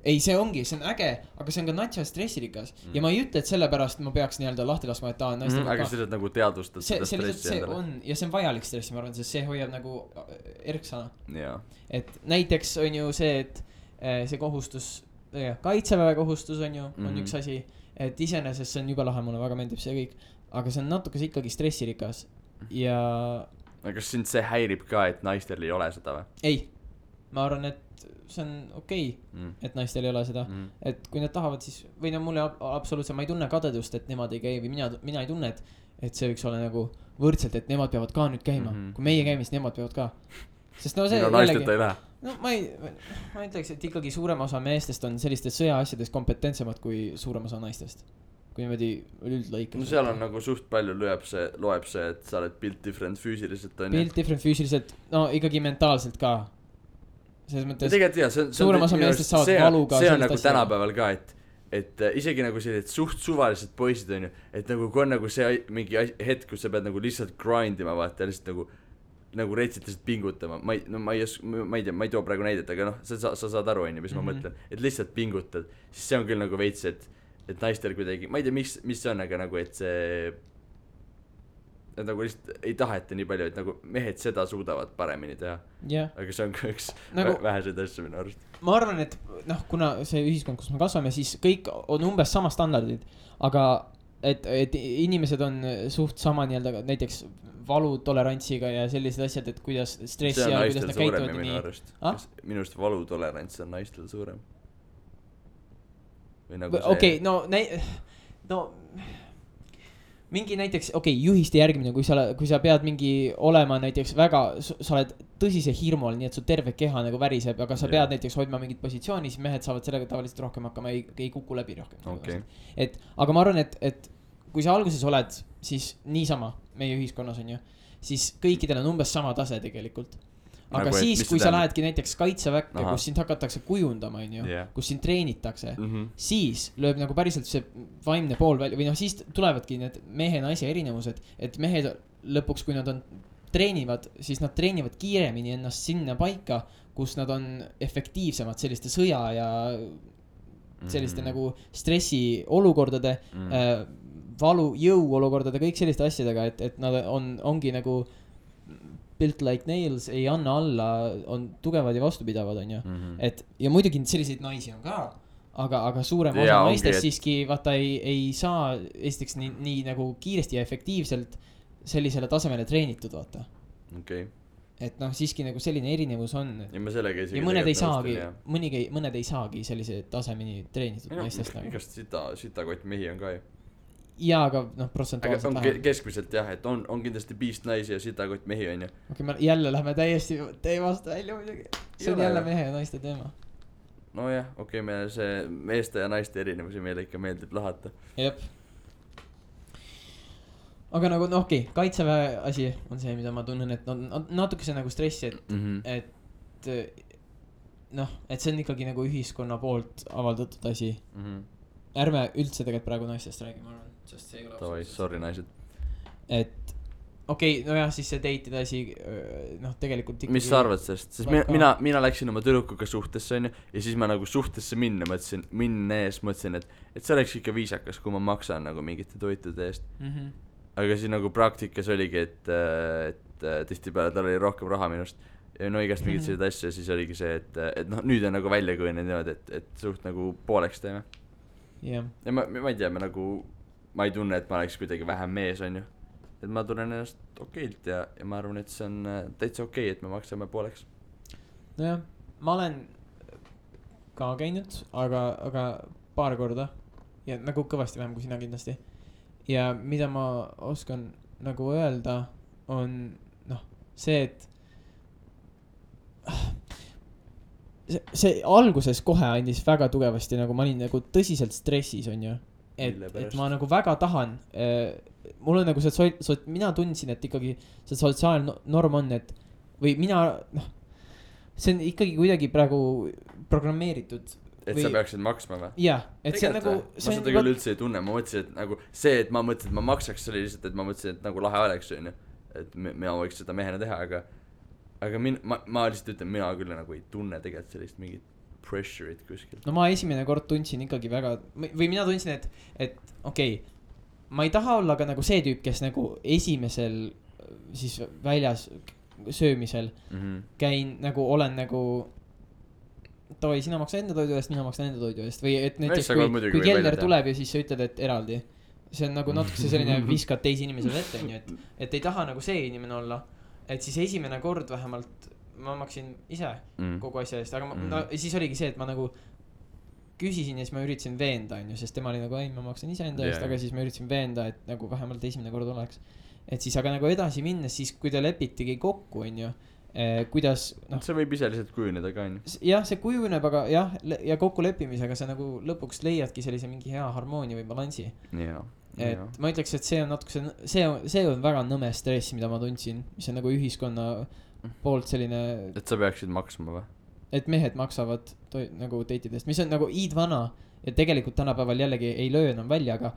Ei, see on äge, aga see on ka natsa stressirikas. Ja ma ei ütle, et sellepärast ma peaks nii-öelda lahti laskma, et naistega
aga see lihtsalt nagu teadvustad seda stressi endale.
Ja see on vajalik stressi, ma arvan, sest see hoiab nagu erksana.
Jaa.
Et näiteks on ju see, et see kohustus, kaitseväe kohustus on ju, on üks asi, et iseenesest see on juba lahe, mulle väga meeldib see kõik, aga see on natuke ikkagi stressirikas ja
aga kas sind see häirib ka, et naistel ei ole seda või?
Ei, ma arvan, et see on okei, et naistel ei ole seda, et kui nad tahavad, siis või mulle absoluutselt, ma ei tunne kadedust, et nemad ei käi või mina ei tunne, et see võiks olla nagu võrdselt, et nemad peavad ka nüüd käima, kui meie käime, siis nemad peavad ka, sest see
naisteta ei lähe.
No ma ütleks, et ikkagi suurem osa meestest on sellistes sõjaasjades kompetentsemad kui suurem osa naistest. Kui niimoodi üldlõikas.
No seal on nagu suht palju loeb see, et sa oled built different füüsiliselt.
Built different füüsiliselt, no ikkagi mentaalselt ka. Selles mõttes
suurem
osa meestest saavad valuga.
See on nagu tänapäeval ka, et isegi nagu sellised suht suvalised poisid on ju, et nagu kui on nagu see mingi hetk, kus sa pead nagu lihtsalt grindima, vaata, lihtsalt nagu reitselt lihtsalt pingutama, ma ei tea, ma ei too praegu näidet, aga sa saad aru, on ju, mis ma mõtlen, et lihtsalt pingutad, siis see on küll nagu veits, et naistel kuidagi, ma ei tea, mis see on, aga nagu, et see, et nagu lihtsalt ei taheta nii palju, et nagu mehed seda suudavad paremini teha. Aga see on ka üks nagu, väheseid asju minu arust.
Ma arvan, et kuna see ühiskond, kus me kasvame, siis kõik on umbes sama standardid, aga et inimesed on suht sama nii-öelda näiteks valutolerantsiga ja sellised asjad, et kuidas stressi ja kuidas nad käituvad nii.
Minu arust valutolerants on naistel suurem.
Okei, no mingi näiteks, juhiste järgimine, kui sa pead mingi olema näiteks väga, sa oled tõsise hirmu all, nii et su terve keha nagu väriseb, aga sa pead näiteks hoidma mingit positsiooni, siis mehed saavad sellega tavaliselt rohkem hakkama, ei kuku läbi rohkem. Aga ma arvan, et kui sa alguses oled, siis niisama meie ühiskonnas on ju, siis kõikidel on umbes sama tase tegelikult. Aga nagu siis, kui sa lähedki näiteks kaitseväkke, kus sind hakatakse kujundama, kus sind treenitakse, siis lööb nagu päriselt see vaimne pool välja, või siis tulevadki need mehe-naise erinevused, et mehed lõpuks, kui nad treenivad, siis nad treenivad kiiremini ennast sinna paika, kus nad on efektiivsemad selliste sõja ja selliste nagu stressi olukordade, valu, jõu olukordade, kõik selliste asjadega, et nad ongi nagu built like nails, ei anna alla, on tugevad ja vastupidavad, on ju. Et, ja muidugi selliseid naisi on ka, aga suurem osa naistest siiski vaata ei saa esiteks nii nagu kiiresti ja efektiivselt sellisele tasemele treenitud, vaata. Et siiski nagu selline erinevus on. Ja mõned ei saagi sellise tasemeni treenitud naistest.
Igast sitakott mehi on ka ju.
Jaa, aga protsentuaalselt
läheb. Keskmiselt jah, et on kindlasti piist naisi ja sitakott mehi on ju.
Me jälle lähme täiesti teemast välja muidugi. See on jälle mehe ja naiste teema.
No jah, meil see meeste ja naiste erinevusi meile ikka meeldib lahata.
Jep. Aga nagu kaitseväe asi on see, mida ma tunnen, et natuke see nagu stressi, et et see on ikkagi nagu ühiskonna poolt avaldatud asi. Ärme üldse tegelikult praegu naistest räägime, ma arvan.
Tavai, sorry naised.
Et siis see date'ide asi tegelikult
mis sa arvad sellest? Sest mina läksin oma tüdrukuga suhtesse on ju, ja siis ma nagu suhtesse mõtlesin, et see oleks ikka viisakas, kui ma maksan nagu mingite toitude eest. Aga siis nagu praktikas oligi, et tihtipeale tal oli rohkem raha minust ja igast mingid sellised asju ja siis oligi see, et nüüd on nagu välja kujunenud niimoodi, et suht nagu pooleks teeme. Ja ma ei tea, ma ei tunne, et ma oleks kuidagi vähem mees, on ju. Et ma tunnen ennast okeilt ja ma arvan, et see on täitsa okei, et me maksame pooleks.
Nojah, ma olen ka käinud, aga paar korda ja nagu kõvasti vähem kui sina kindlasti. Ja mida ma oskan nagu öelda on see, et see alguses kohe andis väga tugevasti, nagu ma olin nagu tõsiselt stressis, on ju. Et ma nagu väga tahan, mul on nagu see, mina tundsin, et ikkagi see sotsiaalne norm on, et või mina, see on ikkagi kuidagi praegu programmeeritud.
Et sa peaksid maksma või?
Jah, et see on nagu...
Ma seda küll üldse ei tunne, ma mõtlesin, et nagu see, et ma mõtlesin, et ma maksaks, see oli lihtsalt, et ma mõtlesin, et nagu lahe oleks, et mina võiks seda mehena teha, aga ma lihtsalt ütlen, mina küll nagu ei tunne tegelikult sellist mingit pressure'it kuskil.
No ma esimene kord tundsin ikkagi väga, või mina tundsin, et ma ei taha olla ka nagu see tüüp, kes nagu esimesel siis väljas söömisel käin nagu, olen nagu toi, sina maksa enda toidu eest, mina maksan enda toidu eest või et näiteks kui kelner tuleb ja siis sa ütled, et eraldi. See on nagu natuke selline viskad teisi inimesele ette, et ei taha nagu see inimene olla. Et siis esimene kord vähemalt ma maksin ise kogu asja eest, aga siis oligi see, et ma nagu küsisin ja siis ma üritasin veenda, sest tema oli nagu, ei, ma maksan ise enda eest, aga siis ma üritasin veenda, et nagu vähemalt esimene kord oleks. Et siis aga nagu edasi minnes, siis kui te lepitigi kokku, kuidas
see võib ise lihtsalt kujuneda ka
jah, see kujuneb, aga jah, ja kokku leppimisega sa nagu lõpuks leiadki sellise mingi hea harmoonia või balansi et ma ütleks, et see on natuke see on väga nõme stress, mida ma tundsin, mis on nagu ühiskonna poolt selline
et sa peaksid maksma või?
Et mehed maksavad nagu date'idest, mis on nagu iidvana ja tegelikult tänapäeval jällegi ei löö enam välja, aga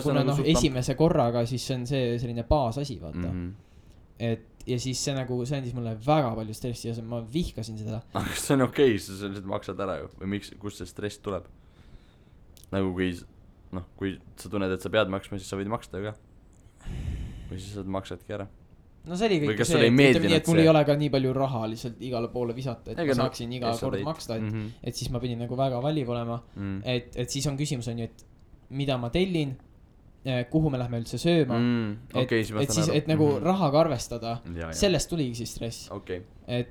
kuna esimese korraga siis see on see selline baasasi, vaata et ja siis see nagu, see andis mulle väga palju stressi ja ma vihkasin seda.
Aga kas see on okei, sa lihtsalt maksad ära ju? Või miks, kust see stress tuleb? Nagu kui sa tunned, et sa pead maksma, siis sa võid maksta ju ka. Või siis sa maksadki ära.
No see oli kõik see, et mul ei ole ka nii palju raha lihtsalt igale poole visata, et ma saaksin iga kord maksta, et siis ma pidin nagu väga valiv olema. Et siis on küsimus on ju, et mida ma tellin, kuhu me lähme üldse sööma et siis, et nagu rahaga arvestada sellest tuligi siis stress et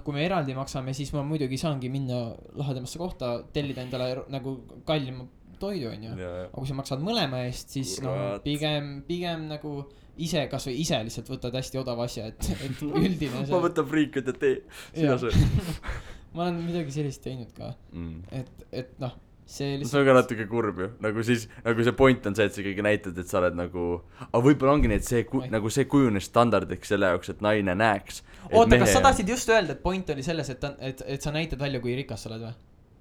kui me eraldi maksame, siis ma muidugi saangi minna lahedamasse kohta, tellida endale nagu kallima toidu onju, aga kui sa maksad mõlema eest, siis pigem nagu ise, kasvõi ise lihtsalt võtad hästi odava asja, et üldine see...
ma võtan friikad ja tee, sina söö.
ma olen midagi sellist teinud ka, et noh, see lihtsalt...
see on ka natuke kurb ju, nagu siis, nagu see point on see, et sa ikkagi näitad, et sa oled nagu, aga võib-olla ongi nii, et see, nagu see kujunes standardiks selle jaoks, et naine näeks.
Oota, kas sa tahtsid just öelda, et point oli selles, et sa näitad välja, kui rikas sa oled või?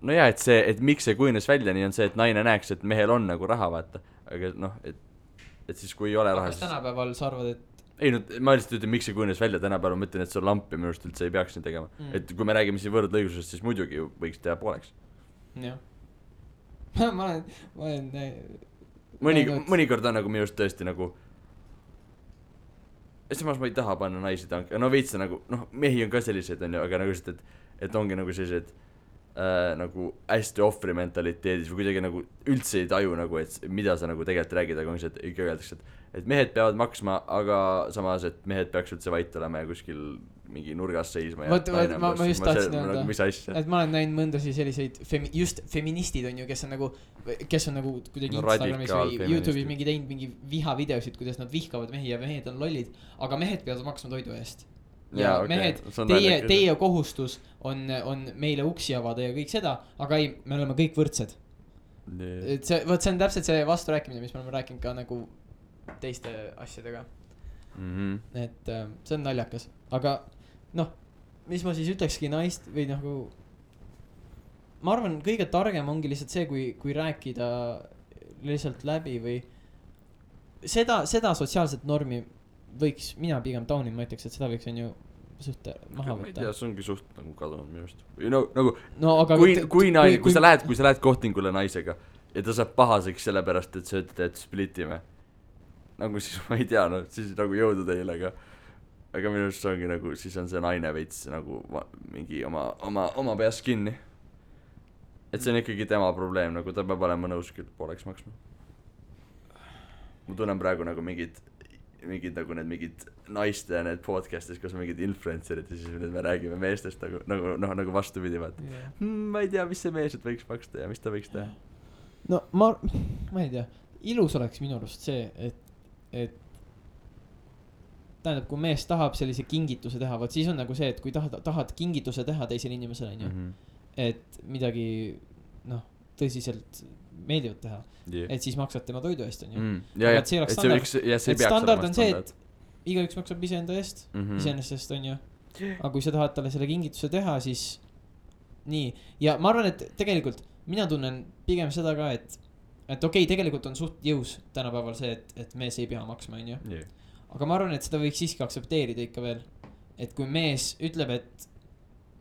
No jaa, et see, et miks see kujunes välja, nii on see, et naine näeks, et mehel on nagu raha, vaata. Aga noh, et siis kui ei ole raha,
siis... tänapäeval sa arvad, et...
Ei, no ma lihtsalt ütlen, miks see kujunes välja, tänapäeval ma ütlen, et see on lamp ja minust üldse ei peaks nii tegema. Et kui me räägime siin võrdõigusest, siis muidugi võiks teha pooleks.
Jah. ma olen
mõnikord on nagu minust tõesti nagu samas ma ei taha panna naisi tanki, no veits nagu, noh, mehi on ka sellised, on ju, aga nagu lihtsalt, et ongi nagu sellised nagu hästi ohvri mentaliteedis või kuidagi nagu üldse ei taju nagu, et mida sa nagu tegelikult räägid, aga ongi see, et ikka öeldakse, et mehed peavad maksma, aga samas, et mehed peaks üldse vait olema ja kuskil mingi nurgas seisma ja
ma just tahtsin öelda,
mis asja?
Et ma olen näinud mõndasi selliseid just feministid on ju, kes on nagu kuidagi Instagramis või YouTube'is mingi teinud mingi vihavideosid, kuidas nad vihkavad mehi ja mehed on lollid, aga mehed peavad maksma toidu eest. Ja mehed, teie kohustus on meile uksi avada ja kõik seda, aga ei, me oleme kõik võrdsed. Et see on täpselt see vasturääkimine, mis me oleme rääkinud ka nagu teiste asjadega. Et see on naljakas, aga noh, mis ma siis ütlekski naist või nagu ma arvan, kõige targem ongi lihtsalt see, kui rääkida lihtsalt läbi või seda sotsiaalset normi võiks mina pigem taunin, ma ütleks, et seda võiks on ju suht maha võtta.
Ma ei tea, see ongi suht nagu kadunud minu just. Nagu, kui sa lähed kohtingule naisega ja ta saab pahaseks sellepärast, et sa ütled, et splitime. Nagu siis ma ei tea, no siis nagu jõudu teile, aga minu just ongi nagu, siis on see naine veits nagu mingi oma peas kinni. Et see on ikkagi tema probleem, nagu ta peab olema nõus küll pooleks maksma. Ma tunnen praegu nagu mingid nagu need mingid naiste ja need podcastis, kus on mingid influencerid ja siis me räägime meestest nagu vastupidi vaat. Ma ei tea, mis see mees võiks maksta ja mis ta võiks teha.
No ma ei tea, ilus oleks minu arust see, et tähendab, kui mees tahab sellise kingituse teha, vaat siis on nagu see, et kui tahad kingituse teha teisele inimesele, et midagi tõsiselt meeldivad teha, et siis maksad tema toidu eest, on ju. Et see oleks standard on see, et igaüks maksab ise enda eest, iseenesest on ju. Aga kui sa tahad talle selle kingituse teha, siis nii. Ja ma arvan, et tegelikult mina tunnen pigem seda ka, et okei, tegelikult on suht jõus tänapäeval see, et mees ei pea maksma, on ju. Aga ma arvan, et seda võiks siiski aksepteerida ikka veel. Et kui mees ütleb, et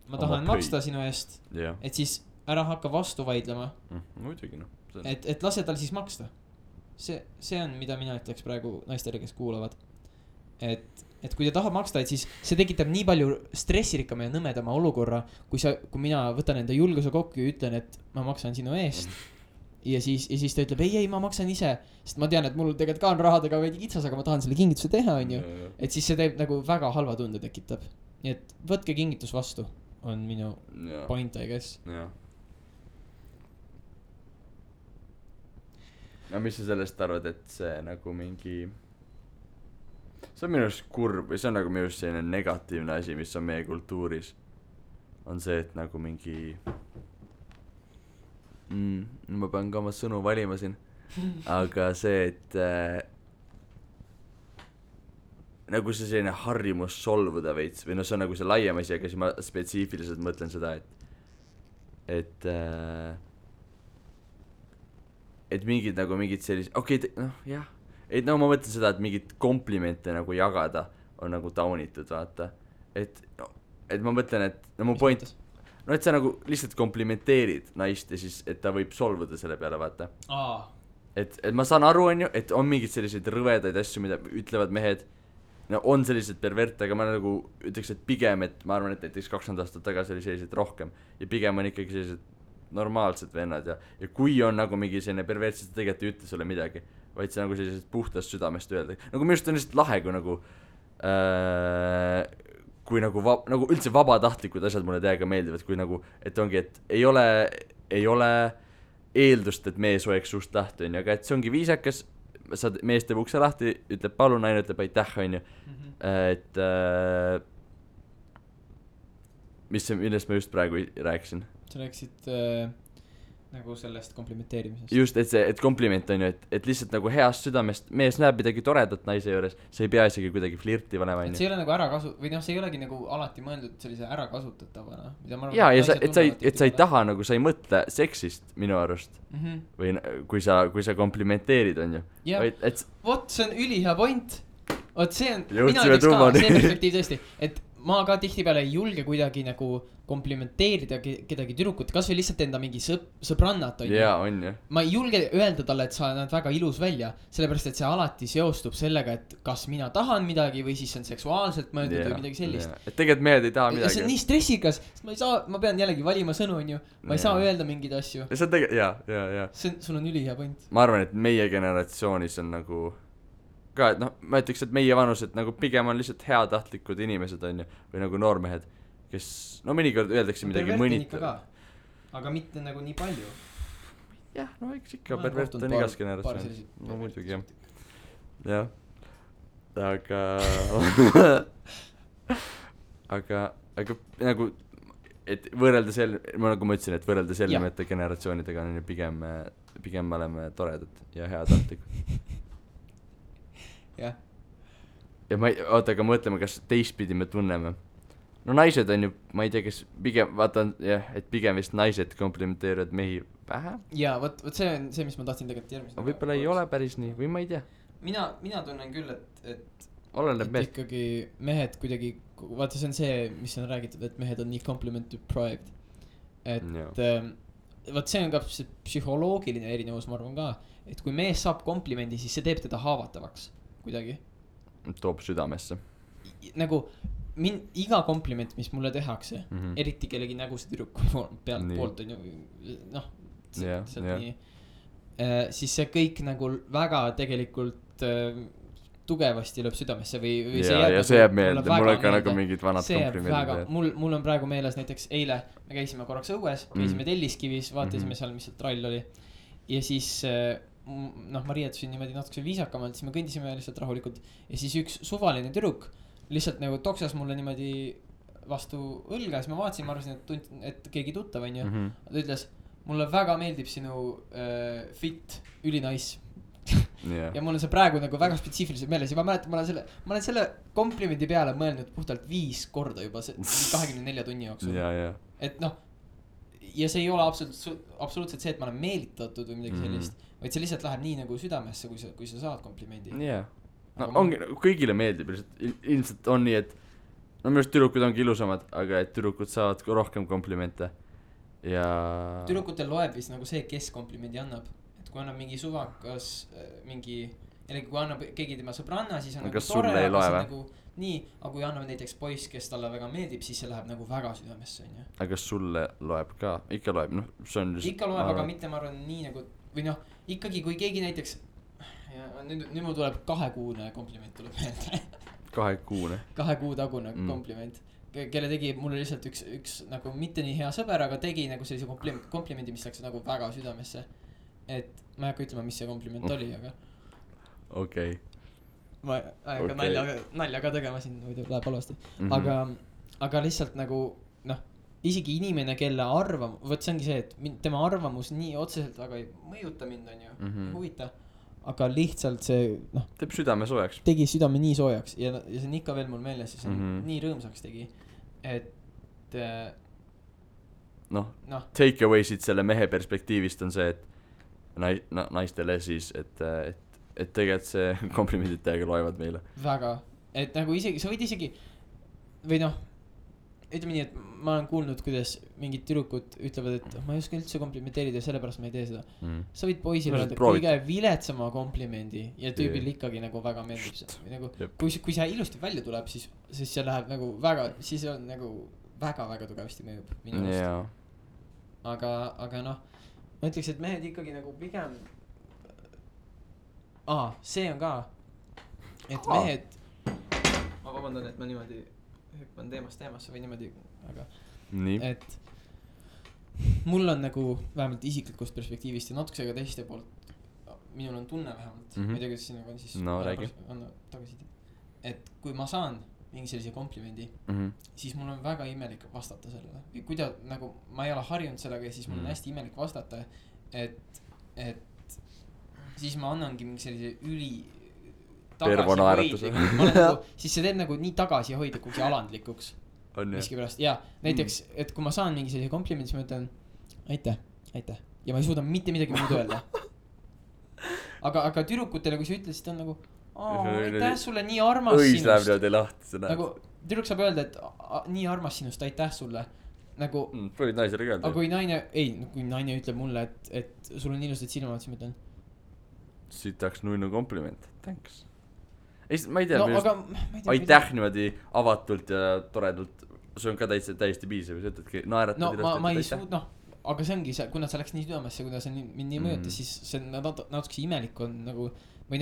ma tahan maksta sinu eest, et siis ära hakka vastu vaidlema.
Muidugi, noh.
Et lase tal siis maksta. See on, mida mina ütleks praegu naistele, kes kuulavad. Et kui ta tahab maksta, et siis see tekitab nii palju stressirikkama ja nõmedama olukorra, kui mina võtan enda julguse kokku ja ütlen, et ma maksan sinu eest. Ja siis ta ütleb, ei, ma maksan ise, sest ma tean, et mul tegelikult ka on rahadega veidi kitsas, aga ma tahan selle kingituse teha, on ju. Et siis see teeb nagu väga halva tunde tekitab. Nii et võtke kingitus vastu, on minu point, I guess.
No mis sa sellest arvad, et see nagu mingi see on minu arust kurb või see on nagu minu arust selline negatiivne asi, mis on meie kultuuris on see, et nagu mingi ma pean ka oma sõnu valima siin aga see, et nagu see selline harjumus solvuda veits või no see on nagu see laiem asi, aga siis ma spetsiifiliselt mõtlen seda, et mingid sellised, jah, et no ma mõtlen seda, et mingid komplimente nagu jagada on nagu taunitud, vaata, et ma mõtlen, et no mu point, no et sa nagu lihtsalt komplimenteerid naist ja siis, et ta võib solvuda selle peale, vaata. Et ma saan aru, on ju, et on mingid selliseid rõvedaid asju, mida ütlevad mehed, no on sellised pervert, aga ma nagu ütleks, et pigem, et ma arvan, et näiteks 20 aastat tagasi oli sellised rohkem ja pigem on ikkagi sellised normaalsed vennad ja kui on nagu mingi selline pervertsus, ta tegelikult ei ütle sulle midagi, vaid see nagu sellisest puhtast südamest öelda. Nagu minu arust on lihtsalt lahe, kui nagu üldse vabatahtlikud asjad mulle täiega meeldivad, kui nagu, et ongi, et ei ole eeldust, et mees hoiaks suust lahti, onju, aga et see ongi viisakas, mees teeb ukse lahti, ütleb palun, naine ütleb aitäh, onju. Et millest ma just praegu rääkisin?
Sa rääkisid nagu sellest komplimenteerimisest.
Just, et kompliment on ju, et lihtsalt nagu heast südamest mees näeb midagi toredat naise juures, see ei pea isegi kuidagi flirti valema, on ju.
See ei ole nagu või noh, see ei olegi nagu alati mõeldud sellise ärakasutatavana.
Jaa, ja et sa ei taha nagu, sa ei mõtle seksist minu arust. Või kui sa komplimenteerid, on ju.
Jah, vot see on ülihea point. Vot see on,
mina ütleks ka,
see perspektiiv tõesti, et ma ka tihtipeale ei julge kuidagi nagu komplimenteerida kedagi tüdrukut, kas või lihtsalt enda mingi sõbrannat on ju.
Jaa, on ju.
Ma ei julge öelda talle, et sa näed väga ilus välja, sellepärast et see alati seostub sellega, et kas mina tahan midagi või siis on seksuaalselt mõeldud või midagi sellist.
Et tegelikult mehed ei taha midagi.
See on nii stressikas, sest ma pean jällegi valima sõnu, on ju. Ma ei saa öelda mingeid asju.
See on tegelikult, jaa.
Sul on ülihea point.
Ma arvan, et meie generatsioonis on nagu ka, et noh, ma ütleks, et meie vanused nagu pigem on lihtsalt heatahtlikud inimesed, on ju, või nagu noormehed, kes, no mõnikord öeldakse midagi mõnitav.
Aga mitte nagu nii palju.
Jah, no eks ikka pervert on igas generatsioonis. No muidugi, jah. Aga nagu, et võrrelda nagu ma ütlesin, et võrrelda sellimete generatsioonidega on pigem me oleme toredad ja heatahtlikud.
Jah.
Ja aga mõtleme, kas teistpidi me tunneme. No naised on ju, ma ei tea, kes pigem, vaatan, jah, et pigem vist naised komplimenteerivad mehi vähe.
Jaa, võt see on see, mis ma tahtsin tegelikult järgmist.
Võib-olla ei ole päris nii, või ma ei tea.
Mina tunnen küll, et
oleneb mehed.
Ikkagi mehed kuidagi, vaata see on see, mis on räägitud, et mehed on nii compliment deprived. Et vaat see on ka psühholoogiline erinevus, ma arvan ka, et kui mees saab komplimendi, siis see teeb teda haavatavaks kuidagi.
Toob südamesse.
Nagu iga kompliment, mis mulle tehakse, eriti kellegi nägusid tüdruku poolt on ju, noh, nii, siis see kõik nagu väga tegelikult tugevasti lööb südamesse või
see jääb meelde, mul on ka nagu mingid vanad komplimendid.
Mul on praegu meeles näiteks eile, me käisime korraks õues, käisime Telliskivis, vaatasime seal, mis seal trall oli. Ja siis, noh, ma riietusin niimoodi natuke viisakamalt, siis me kõndisime lihtsalt rahulikult. Ja siis üks suvaline tüdruk lihtsalt nagu toksas mulle niimoodi vastu õlga, siis ma vaatasin, ma arvasin, et keegi tuttav on ju. Ta ütles, mulle väga meeldib sinu fit, ülinais. Ja mul on see praegu nagu väga spetsiifiliselt meeles ja ma mäletan, ma olen selle komplimendi peale mõelnud puhtalt 5 korda juba 24 tunni jooksul. Et noh, ja see ei ole absoluutselt see, et ma olen meelitatud või midagi sellist, vaid see lihtsalt läheb nii nagu südamesse, kui sa saad komplimendi.
No ongi, kõigile meeldib, ilmselt on nii, et no minu arust tüdrukud ongi ilusamad, aga et tüdrukud saavad rohkem komplimente ja
tüdrukutel loeb vist nagu see, kes komplimendi annab, et kui annab mingi suvakas mingi, jällegi kui annab keegi tema sõbranna, siis on nagu tore, aga see nagu nii, aga kui annab näiteks poiss, kes talle väga meeldib, siis see läheb nagu väga südamesse, on ju.
Aga kas sulle loeb ka? Ikka loeb, noh, see on
just ikka loeb, aga mitte ma arvan nii nagu, või noh, ikkagi kui keegi näiteks ja nüüd mul tuleb 2-kuune kompliment tuleb meelde.
2-kuune?
2 kuu tagune kompliment, kelle tegi mulle lihtsalt üks nagu mitte nii hea sõber, aga tegi nagu sellise komplimendi, mis läks nagu väga südamesse. Et ma ei hakka ütlema, mis see kompliment oli, aga
okei.
Ma ei hakka nalja ka tegema siin, muidu läheb halvasti. Aga lihtsalt nagu noh, isegi inimene, kelle võt see ongi see, et tema arvamus nii otseselt väga ei mõjuta mind, on ju, huvita. Aga lihtsalt see, noh,
teeb südame soojaks.
Tegi südame nii soojaks ja see on ikka veel mul meeles ja see nii rõõmsaks tegi, et
noh, take away siit selle mehe perspektiivist on see, et naistele siis, et tegelikult see komplimendid täiega loevad meile.
Väga, et nagu isegi, sa võid isegi või noh, ütleme nii, et ma olen kuulnud, kuidas mingid tüdrukud ütlevad, et ma ei oska üldse komplimenteerida ja sellepärast ma ei tee seda. Sa võid poisile öelda kõige viletsama komplimendi ja tüübil ikkagi nagu väga meeldib see. Nagu, kui see ilusti välja tuleb, siis see läheb nagu väga, siis on nagu väga tugevasti mõjub minu arust. Aga noh, ma ütleks, et mehed ikkagi nagu pigem see on ka, et mehed ma vabandan, et ma niimoodi hüppan teemasse või niimoodi, aga
nii.
Et mul on nagu vähemalt isiklikust perspektiivist ja natukese ka teiste poolt, minul on tunne vähemalt, ma ei tea, kuidas sinuga on siis
no,
tagasiside, et kui ma saan mingi sellise komplimendi, siis mul on väga imelik vastata sellele. Kuida, nagu ma ei ole harjunud sellega ja siis mul on hästi imelik vastata, et siis ma annangi mingi sellise tagasihoidlikuks, siis see teeb nagu nii tagasihoidlikuks ja alandlikuks miskipärast. Ja näiteks, et kui ma saan mingi sellise komplimendi, siis ma ütlen aitäh ja ma ei suuda mitte midagi muud öelda. Aga tüdrukutele, kui sa ütled, siis ta on nagu aitäh sulle, nii armas sinust. Nagu tüdruk saab öelda, et nii armas sinust, aitäh sulle. Nagu
võid naisele öelda.
Aga kui naine ütleb mulle, et sul on ilusad silmad, siis ma ütlen
siit tahaks nuinu kompliment, thanks. Ma ei tea, aitäh niimoodi avatult ja toredalt, see on ka täiesti piisav, sa ütledki naeratad
ma ei suud, aga see ongi see, kuna see läks nii südamesse, kuna see mind nii mõjutas, siis see natuke imelik on nagu, või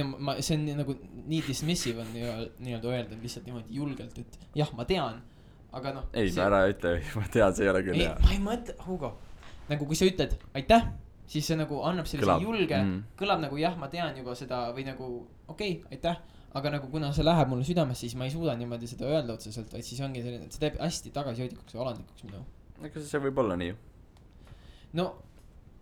see on nagu nii dismissive on nii-öelda öelda lihtsalt niimoodi julgelt, et jah, ma tean, aga
ei, ma ära ütle, ma tean, see ei ole küll hea.
Ma ei mõtle, Hugo, nagu kui sa ütled aitäh, siis see nagu annab sellise julge, kõlab nagu jah, ma tean juba seda või nagu okei, aitäh, aga nagu kuna see läheb mulle südamesse, siis ma ei suuda niimoodi seda öelda otseselt, vaid siis ongi selline, see teeb hästi tagasihoidlikuks ja alandlikuks minu.
Ega see võib olla nii.
No,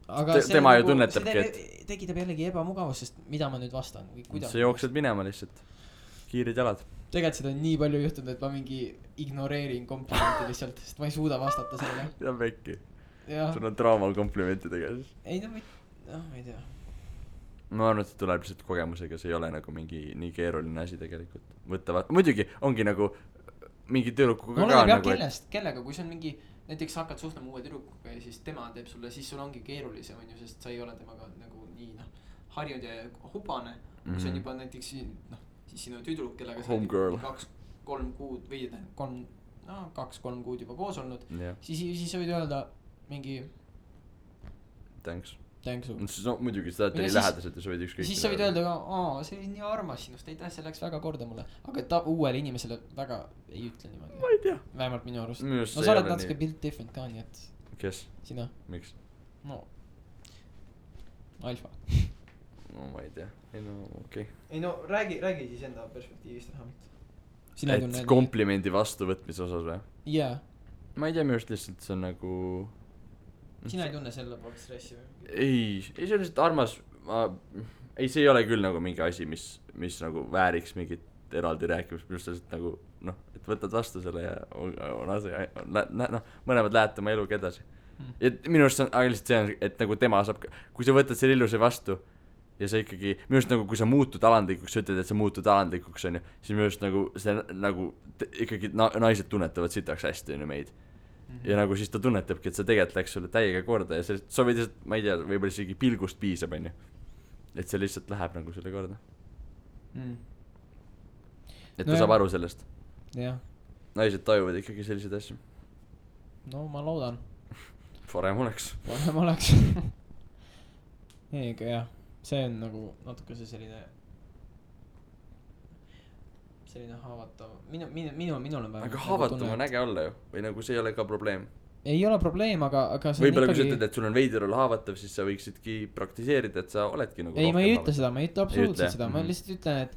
aga
tema ju tunnetabki, et
tekitab jällegi ebamugavust, sest mida ma nüüd vastan või kuidas.
See jooksed minema lihtsalt, kiirid jalad.
Tegelikult seda on nii palju juhtunud, et ma mingi ignoreerin komplimenti lihtsalt, sest ma ei suuda vastata sellele.
Ja vekki. Sul on traumal komplimentidega siis.
Ei, ma ei tea.
Ma arvan, et see tuleb lihtsalt kogemusega, see ei ole nagu mingi nii keeruline asi tegelikult. Muidugi ongi nagu mingi tüdrukuga
ka nagu kellega, kui see on mingi näiteks hakkad suhtlema uue tüdrukuga ja siis tema teeb sulle, siis sul ongi keerulisem, sest sa ei ole temaga nagu nii harjud ja hubane, kui see on juba näiteks siis sinu tüdruk, kellega sa 2-3 kuud või 2-3 kuud juba koos olnud, siis sa võid öelda mingi
thanks.
No
muidugi seda oli lähedaselt ja sa võid ükskõik.
Siis sa võid öelda ka, see oli nii armas sinust, aitäh, see läks väga korda mulle. Aga ta uuele inimesele väga ei ütle niimoodi.
Ma ei tea.
Vähemalt minu arust. No sa oled natuke built different ka, nii et.
Kes?
Sina.
Miks?
No. Alfa.
No ma ei tea. Ei no okei.
Ei no räägi siis enda perspektiivist vähemalt.
Et komplimendi vastuvõtmise osas või?
Jaa.
Ma ei tea, minu arust lihtsalt see on nagu
sina ei tunne selle poolt stressi või?
Ei, see on lihtsalt armas. Ei, see ei ole küll nagu mingi asi, mis nagu vääriks mingit eraldi rääkimist. Minust lihtsalt nagu, et võtad vastu selle ja mõlemad lähete oma eluga edasi. Ja minu arust on lihtsalt see, et nagu tema saab, kui sa võtad selle ilusi vastu ja sa ikkagi, minu arust nagu kui sa muutud alandlikuks, sa ütled, et sa muutud alandlikuks on ju, siis minu arust nagu see nagu ikkagi naised tunnetavad sitaks hästi on ju meid. Ja nagu siis ta tunnetabki, et see tegelikult läks sulle täiega korda ja sa võid lihtsalt, ma ei tea, võib-olla isegi pilgust piisab, on ju. Et see lihtsalt läheb nagu sulle korda. Et ta saab aru sellest.
Jah.
Naised tajuvad ikkagi selliseid asju.
No ma loodan.
Parem oleks.
Ega jah, see on nagu natuke see selline haavatav. Minul on vähem.
Aga haavatav on äge olla ju. Või nagu see ei ole ka probleem.
Ei ole probleem, aga see
võib-olla kui sa ütled, et sul on veider olla haavatav, siis sa võiksidki praktiseerida, et sa oledki nagu
ei, ma ei ütle seda, ma ei ütle absoluutselt seda. Ma lihtsalt ütlen,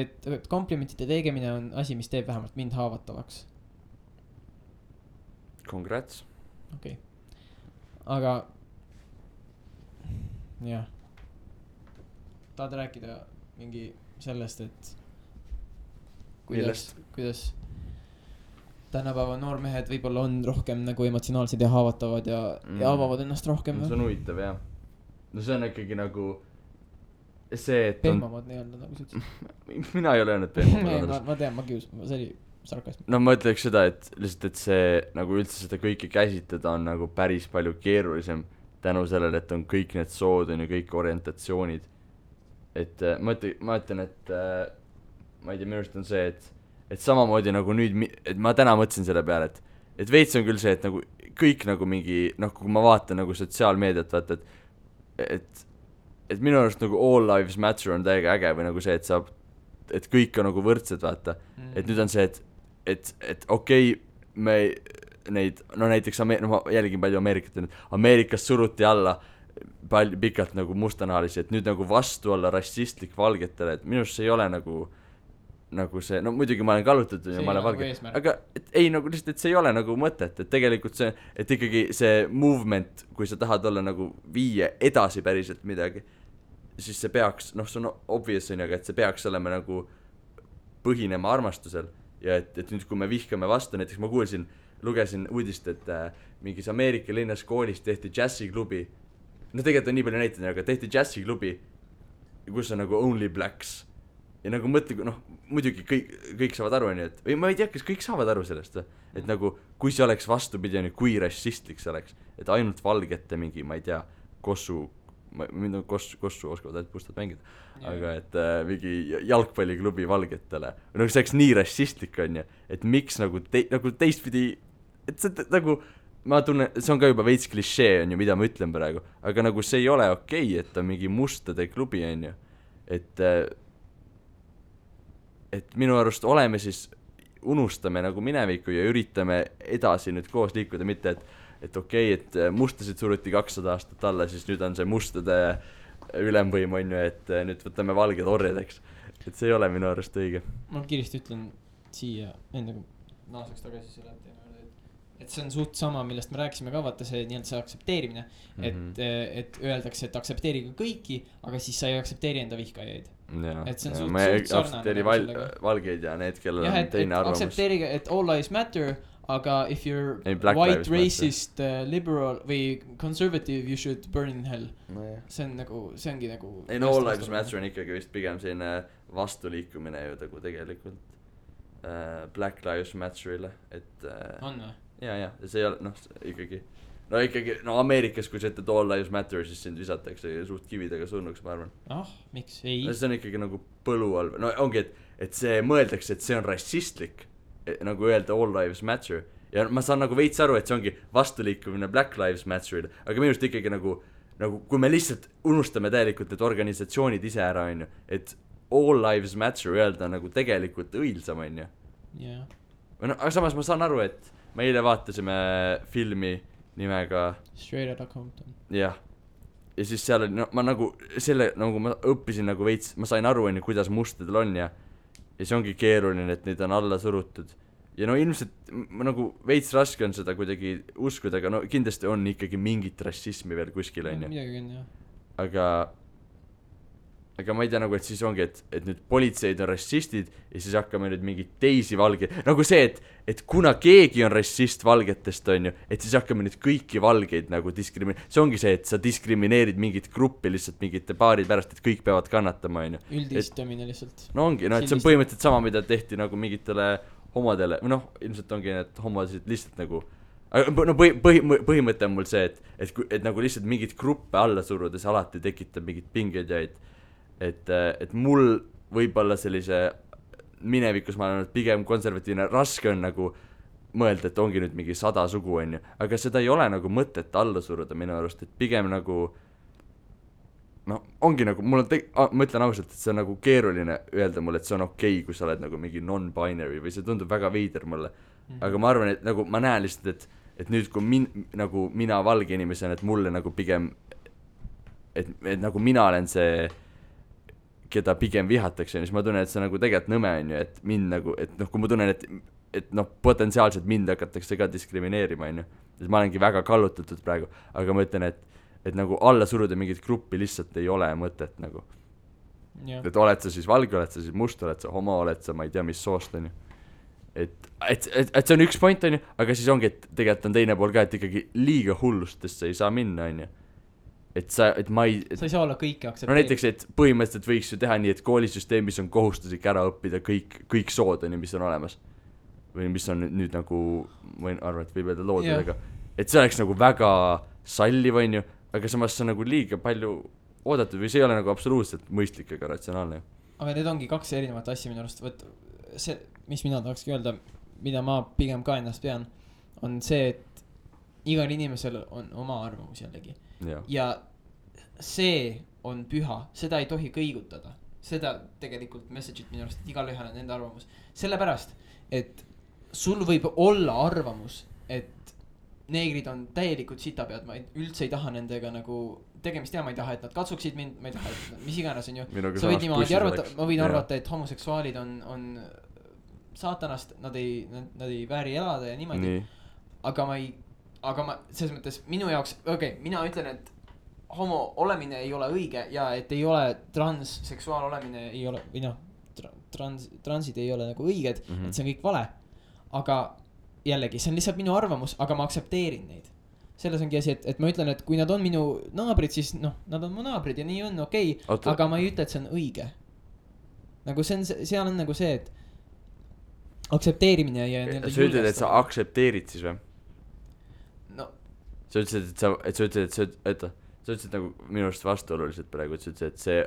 et komplimentide tegemine on asi, mis teeb vähemalt mind haavatavaks.
Congrats.
Okei. Aga jah. Tahad rääkida mingi sellest, et kuidas tänapäeva noormehed võib-olla on rohkem nagu emotsionaalsed ja haavatavad ja avavad ennast rohkem.
See on huvitav, jah. No see on ikkagi nagu see, et
pehmamad nii-öelda nagu sa
ütlesid. Mina ei ole öelnud pehmamad.
Ma tean, see oli sarkasm.
No ma ütleks seda, et lihtsalt, et see nagu üldse seda kõike käsitleda on nagu päris palju keerulisem tänu sellele, et on kõik need sood on ja kõik orientatsioonid. Et ma ütlen, et ma ei tea, minu arust on see, et samamoodi nagu nüüd, et ma täna mõtlesin selle peale, et veits on küll see, et nagu kõik nagu mingi, kui ma vaatan nagu sotsiaalmeediat, vaata, et minu arust nagu all lives matter on täiega äge või nagu see, et kõik on nagu võrdsed, vaata. Et nüüd on see, et okei, neid, no näiteks ma jälgin palju Ameerikat, Ameerikas suruti alla palju pikalt nagu mustanahalisi, et nüüd nagu vastu olla rassistlik valgetele, et minu arust see ei ole nagu see, no muidugi ma olen kallutatud ja ma olen valge, aga et ei nagu lihtsalt, et see ei ole nagu mõtet, et tegelikult see, et ikkagi see movement, kui sa tahad olla nagu viia edasi päriselt midagi, siis see peaks, noh see on obvious on ju, aga et see peaks olema nagu põhinema armastusel ja et nüüd kui me vihkame vastu, näiteks ma lugesin uudist, et mingis Ameerika linnas koolis tehti džässiklubi, no tegelikult on nii palju näiteid, aga tehti džässiklubi, kus on nagu only blacks ja nagu mõtle, noh muidugi kõik saavad aru, on ju, et või ma ei tea, kas kõik saavad aru sellest, et nagu kui see oleks vastupidi, on ju, kui rassistlik see oleks, et ainult valgete mingi, ma ei tea, kossu oskavad ainult mustad mängida, aga et mingi jalgpalliklubi valgetele, nagu see oleks nii rassistlik, on ju, et miks nagu teistpidi, et see nagu ma tunnen, see on ka juba veits klišee, on ju, mida ma ütlen praegu, aga nagu see ei ole okei, et on mingi mustade klubi, on ju, et minu arust oleme siis, unustame nagu minevikku ja üritame edasi nüüd koos liikuda, mitte et okei, et mustasid suruti 200 aastat alla, siis nüüd on see mustade ülemvõim, on ju, et nüüd võtame valged orjadeks, et see ei ole minu arust õige.
Ma kiiresti ütlen siia, enne kui naaseks tagasi selle teema, et see on suht sama, millest me rääkisime ka, vaata see nii-öelda see aktsepteerimine, et öeldakse, et aktsepteerige kõiki, aga siis sa ei aktsepteeri enda vihkajaid. Et see on suht
aktsepteeri valgeid ja need, kellel on teine arvamus.
Aktsepteeriga, et all lives matter, aga if you're white, racist, liberal või conservative, you should burn in hell. See on nagu, see ongi nagu
ei no all lives matter on ikkagi vist pigem selline vastuliikumine ju nagu tegelikult Black Lives Matterile, et
on või?
ja see ei ole, ikkagi Ameerikas, kui sa ütled all lives matter, siis sind visatakse suht kividega surnuks, ma arvan.
Miks? Ei.
See on ikkagi nagu põlu all, no ongi, et see mõeldakse, et see on rassistlik, nagu öelda all lives matter, ja ma saan nagu veits aru, et see ongi vastuliikumine Black Lives Matterile, aga minu arust ikkagi nagu kui me lihtsalt unustame täielikult need organisatsioonid ise ära, on ju, et all lives matter öelda nagu tegelikult õilsam, on ju. Aga samas ma saan aru, et me eile vaatasime filmi nimega
Straight Outta Compton.
Jah. Ja siis seal oli, ma nagu selle, nagu ma õppisin nagu veits, ma sain aru, kuidas mustadel on ja see ongi keeruline, et neid on alla surutud. Ja no ilmselt nagu veits raske on seda kuidagi uskuda, aga no kindlasti on ikkagi mingit rassismi veel kuskil, on ju.
Midagi on,
jah. Aga ma ei tea nagu, et siis ongi, et nüüd politseid on rassistid ja siis hakkame nüüd mingid teisi valgeid, nagu see, et kuna keegi on rassist valgetest, on ju, et siis hakkame nüüd kõiki valgeid nagu see ongi see, et sa diskrimineerid mingit gruppi lihtsalt mingite paari pärast, et kõik peavad kannatama, on ju.
Üldistamine lihtsalt.
No ongi, et see on põhimõtteliselt sama, mida tehti nagu mingitele homodele, või noh, ilmselt ongi need homosid lihtsalt nagu, no põhimõte on mul see, et nagu lihtsalt mingit gruppe alla surudes alati tekitab mingit pingeid ja et mul võib-olla sellise minevikus ma olen pigem konservatiivne, raske on nagu mõelda, et ongi nüüd mingi 100 sugu, on ju, aga seda ei ole nagu mõtet alla suruda minu arust, et pigem nagu no ongi nagu, mul on ma ütlen ausalt, et see on nagu keeruline öelda mulle, et see on okei, kui sa oled nagu mingi non-binary või see tundub väga veider mulle, aga ma arvan, et nagu ma näen lihtsalt, et nüüd kui nagu mina valge inimesena, et mulle nagu pigem et nagu mina olen see keda pigem vihatakse, siis ma tunnen, et see nagu tegelikult nõme on ju, et mind nagu, et noh, kui ma tunnen, et noh, potentsiaalselt mind hakatakse ka diskrimineerima, on ju, siis ma olengi väga kallutatud praegu, aga ma ütlen, et nagu alla suruda mingit gruppi lihtsalt ei ole mõtet nagu. Et oled sa siis valge, oled sa siis must, oled sa homo, oled sa ma ei tea, mis soost, on ju. Et see on üks point, on ju, aga siis ongi, et tegelikult on teine pool ka, et ikkagi liiga hullustesse ei saa minna, on ju. Sa ei
saa olla kõike aktsepteerida.
No näiteks, et põhimõtteliselt võiks ju teha nii, et koolisüsteemis on kohustuslik ära õppida kõik sood, mis on olemas. Või mis on nüüd nagu, ma arvan, et võib öelda loodudega. Et see oleks nagu väga salliv, on ju, aga samas see on nagu liiga palju oodatud või see ei ole nagu absoluutselt mõistlik ega ratsionaalne.
Aga need ongi kaks erinevat asja minu arust. See, mis mina tahakski öelda, mida ma pigem ka ennast pean, on see, et igal inimesel on oma arvamus jällegi. Ja see on püha, seda ei tohi kõigutada, seda tegelikult message'it minu arust, et igal ühel on enda arvamus, sellepärast, et sul võib olla arvamus, et neegrid on täielikult sitapead, ma üldse ei taha nendega nagu tegemist teha, ma ei taha, et nad katsuksid mind, ma ei taha, et mis iganes on ju. Sa võid niimoodi arvata, ma võin arvata, et homoseksuaalid on saatanast, nad ei vääri elada ja niimoodi. Aga ma selles mõttes minu jaoks, mina ütlen, et homo olemine ei ole õige ja et ei ole transseksuaal olemine ei ole, või noh, transid ei ole nagu õiged, et see on kõik vale. Aga jällegi, see on lihtsalt minu arvamus, aga ma aktsepteerin neid. Selles ongi asi, et ma ütlen, et kui nad on minu naabrid, siis noh, nad on mu naabrid ja nii on okei. Aga ma ei ütle, et see on õige. Nagu seal on nagu see, et aktsepteerimine ja
sa ütled, et sa aktsepteerid siis või?
No.
Sa ütlesid, et sa ütlesid nagu minu arust vastuoluliselt praegu, et see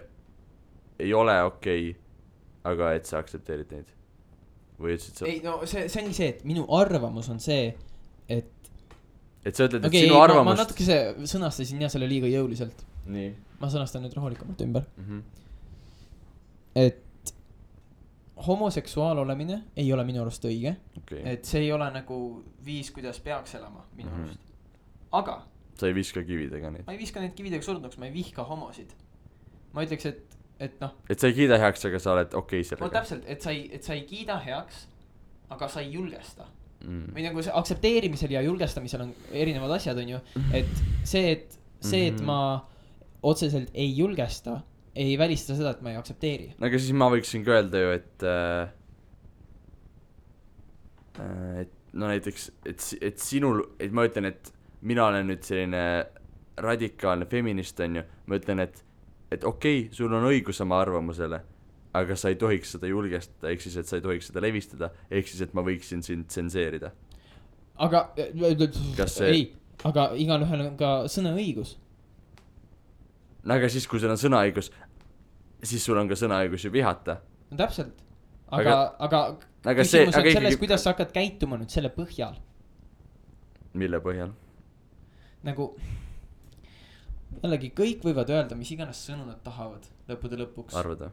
ei ole okei, aga et sa aktsepteerid neid. Või ütlesid sa?
Ei, no see ongi see, et minu arvamus on see, et
sa ütled, et sinu arvamust...
Ma natuke sõnastasin ja selle liiga jõuliselt.
Nii.
Ma sõnastan nüüd rahulikumalt ümber. Et homoseksuaal olemine ei ole minu arust õige. Et see ei ole nagu viis, kuidas peaks elama minu arust. Aga
sa ei viska kividega neid?
Ma ei viska neid kividega surnuks, ma ei vihka homosid. Ma ütleks, et noh...
Et sa ei kiida heaks, aga sa oled okei sellega.
No täpselt, et sa ei kiida heaks, aga sa ei julgesta. Või nagu see aktsepteerimisel ja julgestamisel on erinevad asjad, on ju. Et see, et ma otseselt ei julgesta, ei välista seda, et ma ei aktsepteeri.
Aga siis ma võiksin ka öelda ju, et no näiteks, et sinul, et ma ütlen, et mina olen nüüd selline radikaalne feminist, on ju. Ma ütlen, et okei, sul on õigus oma arvamusele, aga sa ei tohiks seda julgestada, ehk siis, et sa ei tohiks seda levistada, ehk siis, et ma võiksin sind tsenseerida.
Aga, ei, aga igalühel on ka sõnaõigus.
Aga siis, kui sul on sõnaõigus, siis sul on ka sõnaõigus ju vihata.
No täpselt. Aga küsimus on selles, kuidas sa hakkad käituma nüüd selle põhjal.
Mille põhjal?
Nagu jällegi kõik võivad öelda, mis iganes sõnu nad tahavad lõppude lõpuks.
Arvada.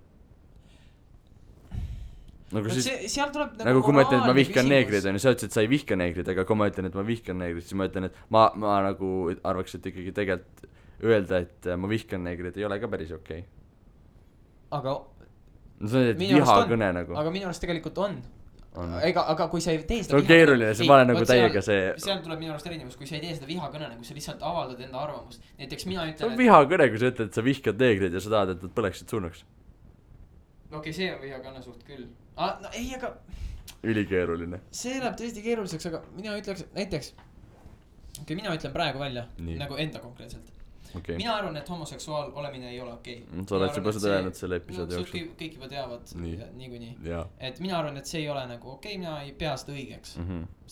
Nagu siis,
seal tuleb
nagu kui ma ütlen, et ma vihkan neegrid, on ju, sa ütlesid, et sa ei vihka neegrid, aga kui ma ütlen, et ma vihkan neegrid, siis ma ütlen, et ma nagu arvaks, et ikkagi tegelikult öelda, et ma vihkan neegrid ei ole ka päris okei.
Aga
no see on, et vihakõne nagu.
Aga minu arust tegelikult on. Aga kui sa ei tee seda
see on keeruline, see vale nagu täiega see
seal tuleb minu arust erinevus, kui sa ei tee seda vihakõne, kui sa lihtsalt avaldad enda arvamust. Näiteks mina ütlen,
see on vihakõne, kui sa ütled, et sa vihkad neegrid ja sa tahad, et nad põleksid surnuks.
Okei, see on vihakõne suht küll. No ei, aga
ülikeeruline.
See läheb tõesti keeruliseks, aga mina ütleks näiteks mina ütlen praegu välja nagu enda konkreetselt. Mina arvan, et homoseksuaal olemine ei ole okei.
Sa oled juba seda öelnud selle episoodi jooksul.
Kõik juba teavad niikuinii. Et mina arvan, et see ei ole nagu okei, mina ei pea seda õigeks.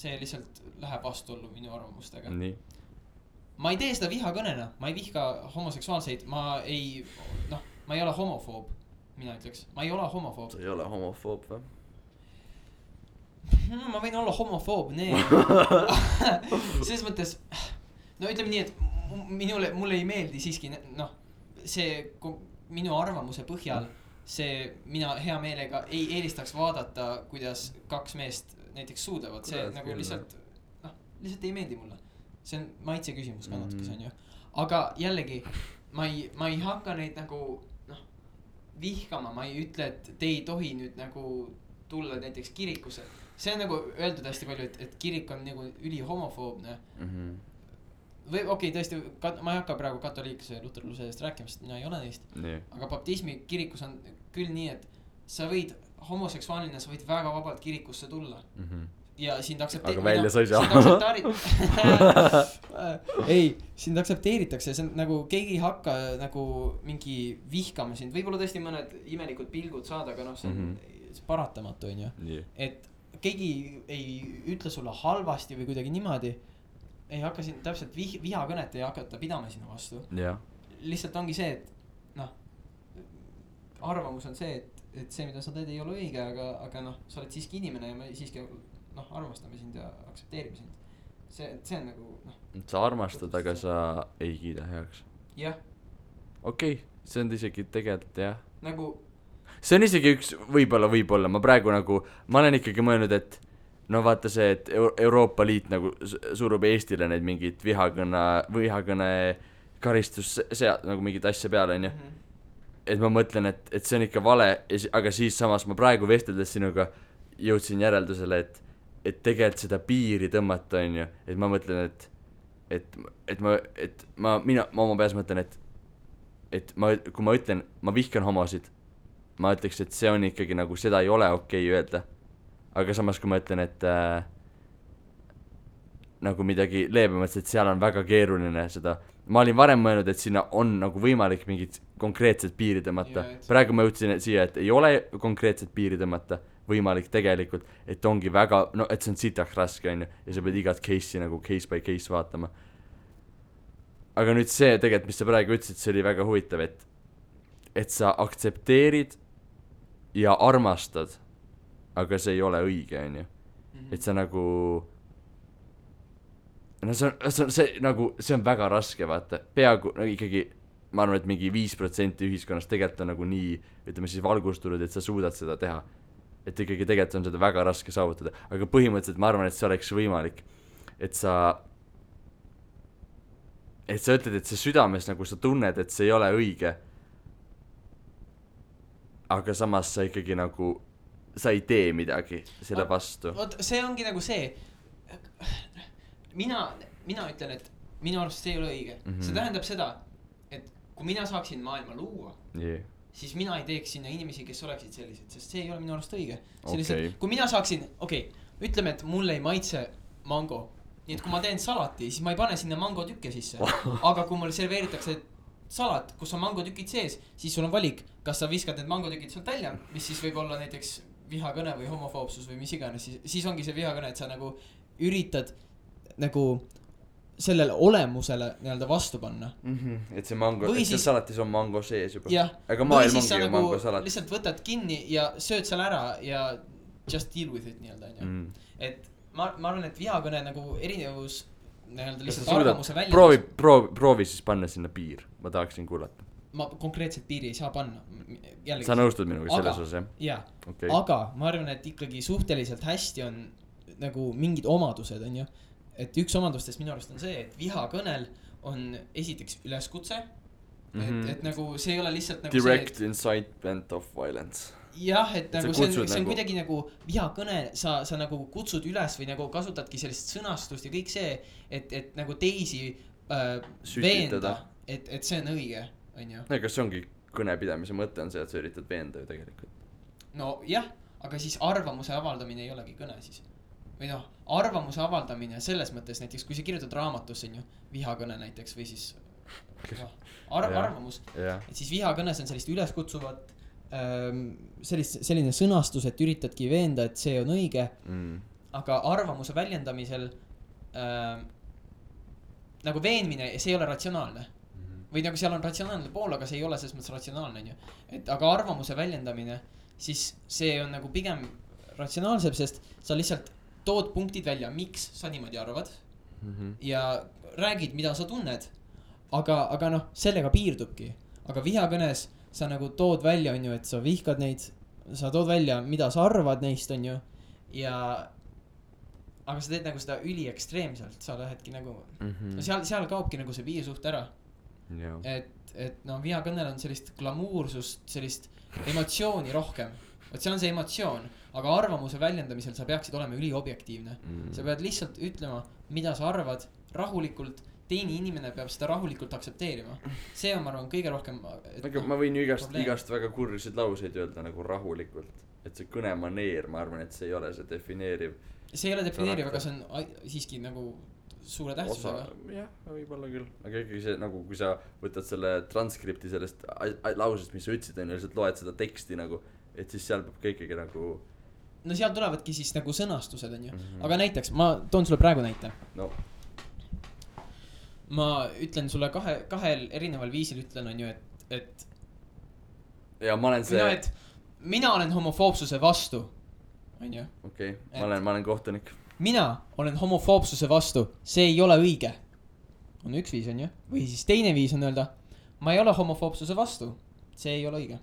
See lihtsalt läheb vastuollu minu arvamustega. Ma ei tee seda vihakõnena, ma ei vihka homoseksuaalseid, ma ei ole homofoob, mina ütleks. Ma ei ole homofoob.
Sa ei ole homofoob või?
Ma võin olla homofoob, selles mõttes, no ütleme nii, et mulle ei meeldi siiski, see minu arvamuse põhjal, mina hea meelega ei eelistaks vaadata, kuidas kaks meest näiteks suudavad, see nagu lihtsalt ei meeldi mulle. See on maitse küsimus ka natuke, see on ju. Aga jällegi, ma ei hakka neid nagu vihkama, ma ei ütle, et te ei tohi nüüd nagu tulla näiteks kirikusse. See on nagu öeldud hästi palju, et kirik on nagu üli homofoobne. Või okei, tõesti, ma ei hakka praegu katoliikluse ja luterluse eest rääkima, sest mina ei ole neist. Aga baptismi kirikus on küll nii, et sa võid homoseksuaalina, sa võid väga vabalt kirikusse tulla. Ja sind
aktsepteeritakse. Aga välja sa ei saa.
Ei, sind aktsepteeritakse, see on nagu keegi ei hakka nagu mingi vihkama sind. Võib-olla tõesti mõned imelikud pilgud saada, aga see on paratamatu, on ju. Et keegi ei ütle sulle halvasti või kuidagi niimoodi. Ei hakka siin täpselt vihakõnet ei hakata pidama sinu vastu. Lihtsalt ongi see, et arvamus on see, et see, mida sa teed, ei ole õige, aga sa oled siiski inimene ja me siiski armastame sind ja aktsepteerime sind. See on nagu
sa armastad, aga sa ei kiida heaks.
Jah.
Okei, see on isegi tegelikult jah.
Nagu
see on isegi üks, võib-olla, ma praegu nagu, ma olen ikkagi mõelnud, et no vaata see, et Euroopa Liit nagu surub Eestile neid mingit vihakõne karistus nagu mingit asja peale, onju. Et ma mõtlen, et see on ikka vale, aga siis samas ma praegu vesteldes sinuga jõudsin järeldusele, et tegelikult seda piiri tõmmata, onju, et ma mõtlen, et ma oma peas mõtlen, kui ma ütlen, ma vihkan homosid, ma ütleks, et see on ikkagi nagu, seda ei ole okei öelda. Aga samas, kui ma ütlen, et nagu midagi leebemalt, et seal on väga keeruline seda, ma olin varem mõelnud, et sinna on nagu võimalik mingid konkreetsed piiri tõmmata. Praegu ma jõudsin siia, et ei ole konkreetset piiri tõmmata võimalik tegelikult, et ongi väga, no et see on sitaks raske, onju, ja sa pead igat case'i nagu case by case vaatama. Aga nüüd see tegelikult, mis sa praegu ütlesid, see oli väga huvitav, et sa aktsepteerid ja armastad, aga see ei ole õige, onju. Et sa nagu, no see on väga raske, vaata, peaaegu, no ikkagi, ma arvan, et mingi 5% ühiskonnast tegelikult on nagu nii, ütleme siis valgustunud, et sa suudad seda teha. Et ikkagi tegelikult on seda väga raske saavutada, aga põhimõtteliselt ma arvan, et see oleks võimalik, et sa ütled, et see südames nagu sa tunned, et see ei ole õige, aga samas sa ikkagi nagu sa ei tee midagi selle vastu.
Vot see ongi nagu see, mina ütlen, et minu arust see ei ole õige. See tähendab seda, et kui mina saaksin maailma luua, siis mina ei teeks sinna inimesi, kes oleksid sellised, sest see ei ole minu arust õige. Kui mina saaksin, ütleme, et mulle ei maitse mango, nii et kui ma teen salati, siis ma ei pane sinna mango tükke sisse. Aga kui mulle serveeritakse salat, kus on mango tükid sees, siis sul on valik, kas sa viskad need mango tükid sealt välja, mis siis võib olla näiteks vihakõne või homofoobsus või mis iganes, siis ongi see vihakõne, et sa nagu üritad nagu sellele olemusele nii-öelda vastu panna.
Et see mango, et see salatis on mango sees juba.
Aga maailm ongi ju mango salat. Lihtsalt võtad kinni ja sööd seal ära ja just deal with it nii-öelda. Et ma arvan, et vihakõne nagu erinevus nii-öelda lihtsalt arvamuse välja.
Proovi siis panna sinna piir, ma tahaksin kuulata.
Ma konkreetselt piiri ei saa panna. Jällegi,
sa nõustud minuga selles osas,
jah? Aga ma arvan, et ikkagi suhteliselt hästi on nagu mingid omadused, on ju. Et üks omadustest minu arust on see, et vihakõnel on esiteks üleskutse. Et nagu see ei ole lihtsalt nagu
direct incitement of violence.
Jah, et nagu see on kuidagi nagu vihakõne, sa nagu kutsud üles või nagu kasutadki sellist sõnastust ja kõik see, et nagu teisi veenda, et see on õige.
Kas see ongi kõnepidamise mõte on see, et sa üritad veenda ju tegelikult?
No jah, aga siis arvamuse avaldamine ei olegi kõne siis. Või noh, arvamuse avaldamine selles mõttes näiteks, kui sa kirjutad raamatusse vihakõne näiteks või siis arvamus, et siis vihakõnes on sellist üleskutsuvat, selline sõnastus, et üritadki veenda, et see on õige, aga arvamuse väljendamisel nagu veenmine, see ei ole ratsionaalne. Või nagu seal on ratsionaalne pool, aga see ei ole selles mõttes ratsionaalne, on ju. Et aga arvamuse väljendamine, siis see on nagu pigem ratsionaalsem, sest sa lihtsalt tood punktid välja, miks sa niimoodi arvad ja räägid, mida sa tunned. Aga noh, sellega piirdubki. Aga vihakõnes sa nagu tood välja, on ju, et sa vihkad neid, sa tood välja, mida sa arvad neist, on ju. Ja aga sa teed nagu seda üli ekstreemselt, sa lähedki nagu seal kaobki nagu see piirsuht ära. Et no vihakõnel on sellist glamuursust, sellist emotsiooni rohkem. Et see on see emotsioon, aga arvamuse väljendamisel sa peaksid olema üliobjektiivne. Sa pead lihtsalt ütlema, mida sa arvad rahulikult, teine inimene peab seda rahulikult aktsepteerima. See on, ma arvan, kõige rohkem
ma võin ju igast väga kurrisid lauseid öelda nagu rahulikult. Et see kõnemaneer, ma arvan, et see ei ole see defineeriv.
See ei ole defineeriv, aga see on siiski nagu suure tähtsusega.
Jah, võib-olla küll. Aga ikkagi see, nagu kui sa võtad selle transkripti sellest lausest, mis sa ütlesid, on lihtsalt loed seda teksti nagu, et siis seal peab ka ikkagi nagu
no seal tulevadki siis nagu sõnastused, on ju. Aga näiteks, ma toon sulle praegu näite.
No.
Ma ütlen sulle kahel erineval viisil ütlen, on ju, et
ja ma olen see
mina olen homofoobsuse vastu, on ju.
Okei, ma olen kohtunik.
Mina olen homofoobsuse vastu, see ei ole õige. On üks viis, on ju. Või siis teine viis on öelda, ma ei ole homofoobsuse vastu, see ei ole õige.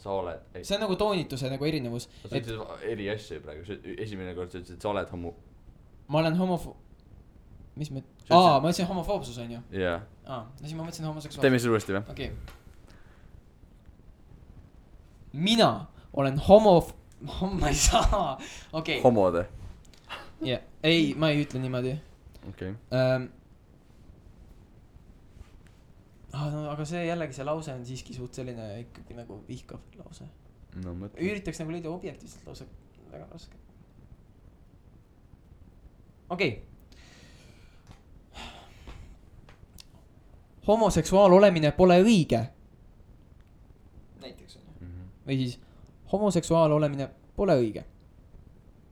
sa oled.
See on nagu toonituse nagu erinevus.
sa ütlesid eri asju praegu, esimene kord sa ütlesid, et sa oled
ma olen mis ma ütlesin homofoobsus on ju?
jaa.
no siis ma mõtlesin homoseksuaalsus.
teeme siis uuesti või?
okei. Mina olen ma ei saa. okei.
homode.
jah, ei, ma ei ütle niimoodi.
okei.
No, aga see jällegi, see lause on siiski suht selline ikkagi nagu vihkav lause.
No mõtle.
Üritaks nagu leida objektiivselt lause, väga raske. okei. Homoseksuaal olemine pole õige. Näiteks on ju. Või siis homoseksuaal olemine pole õige.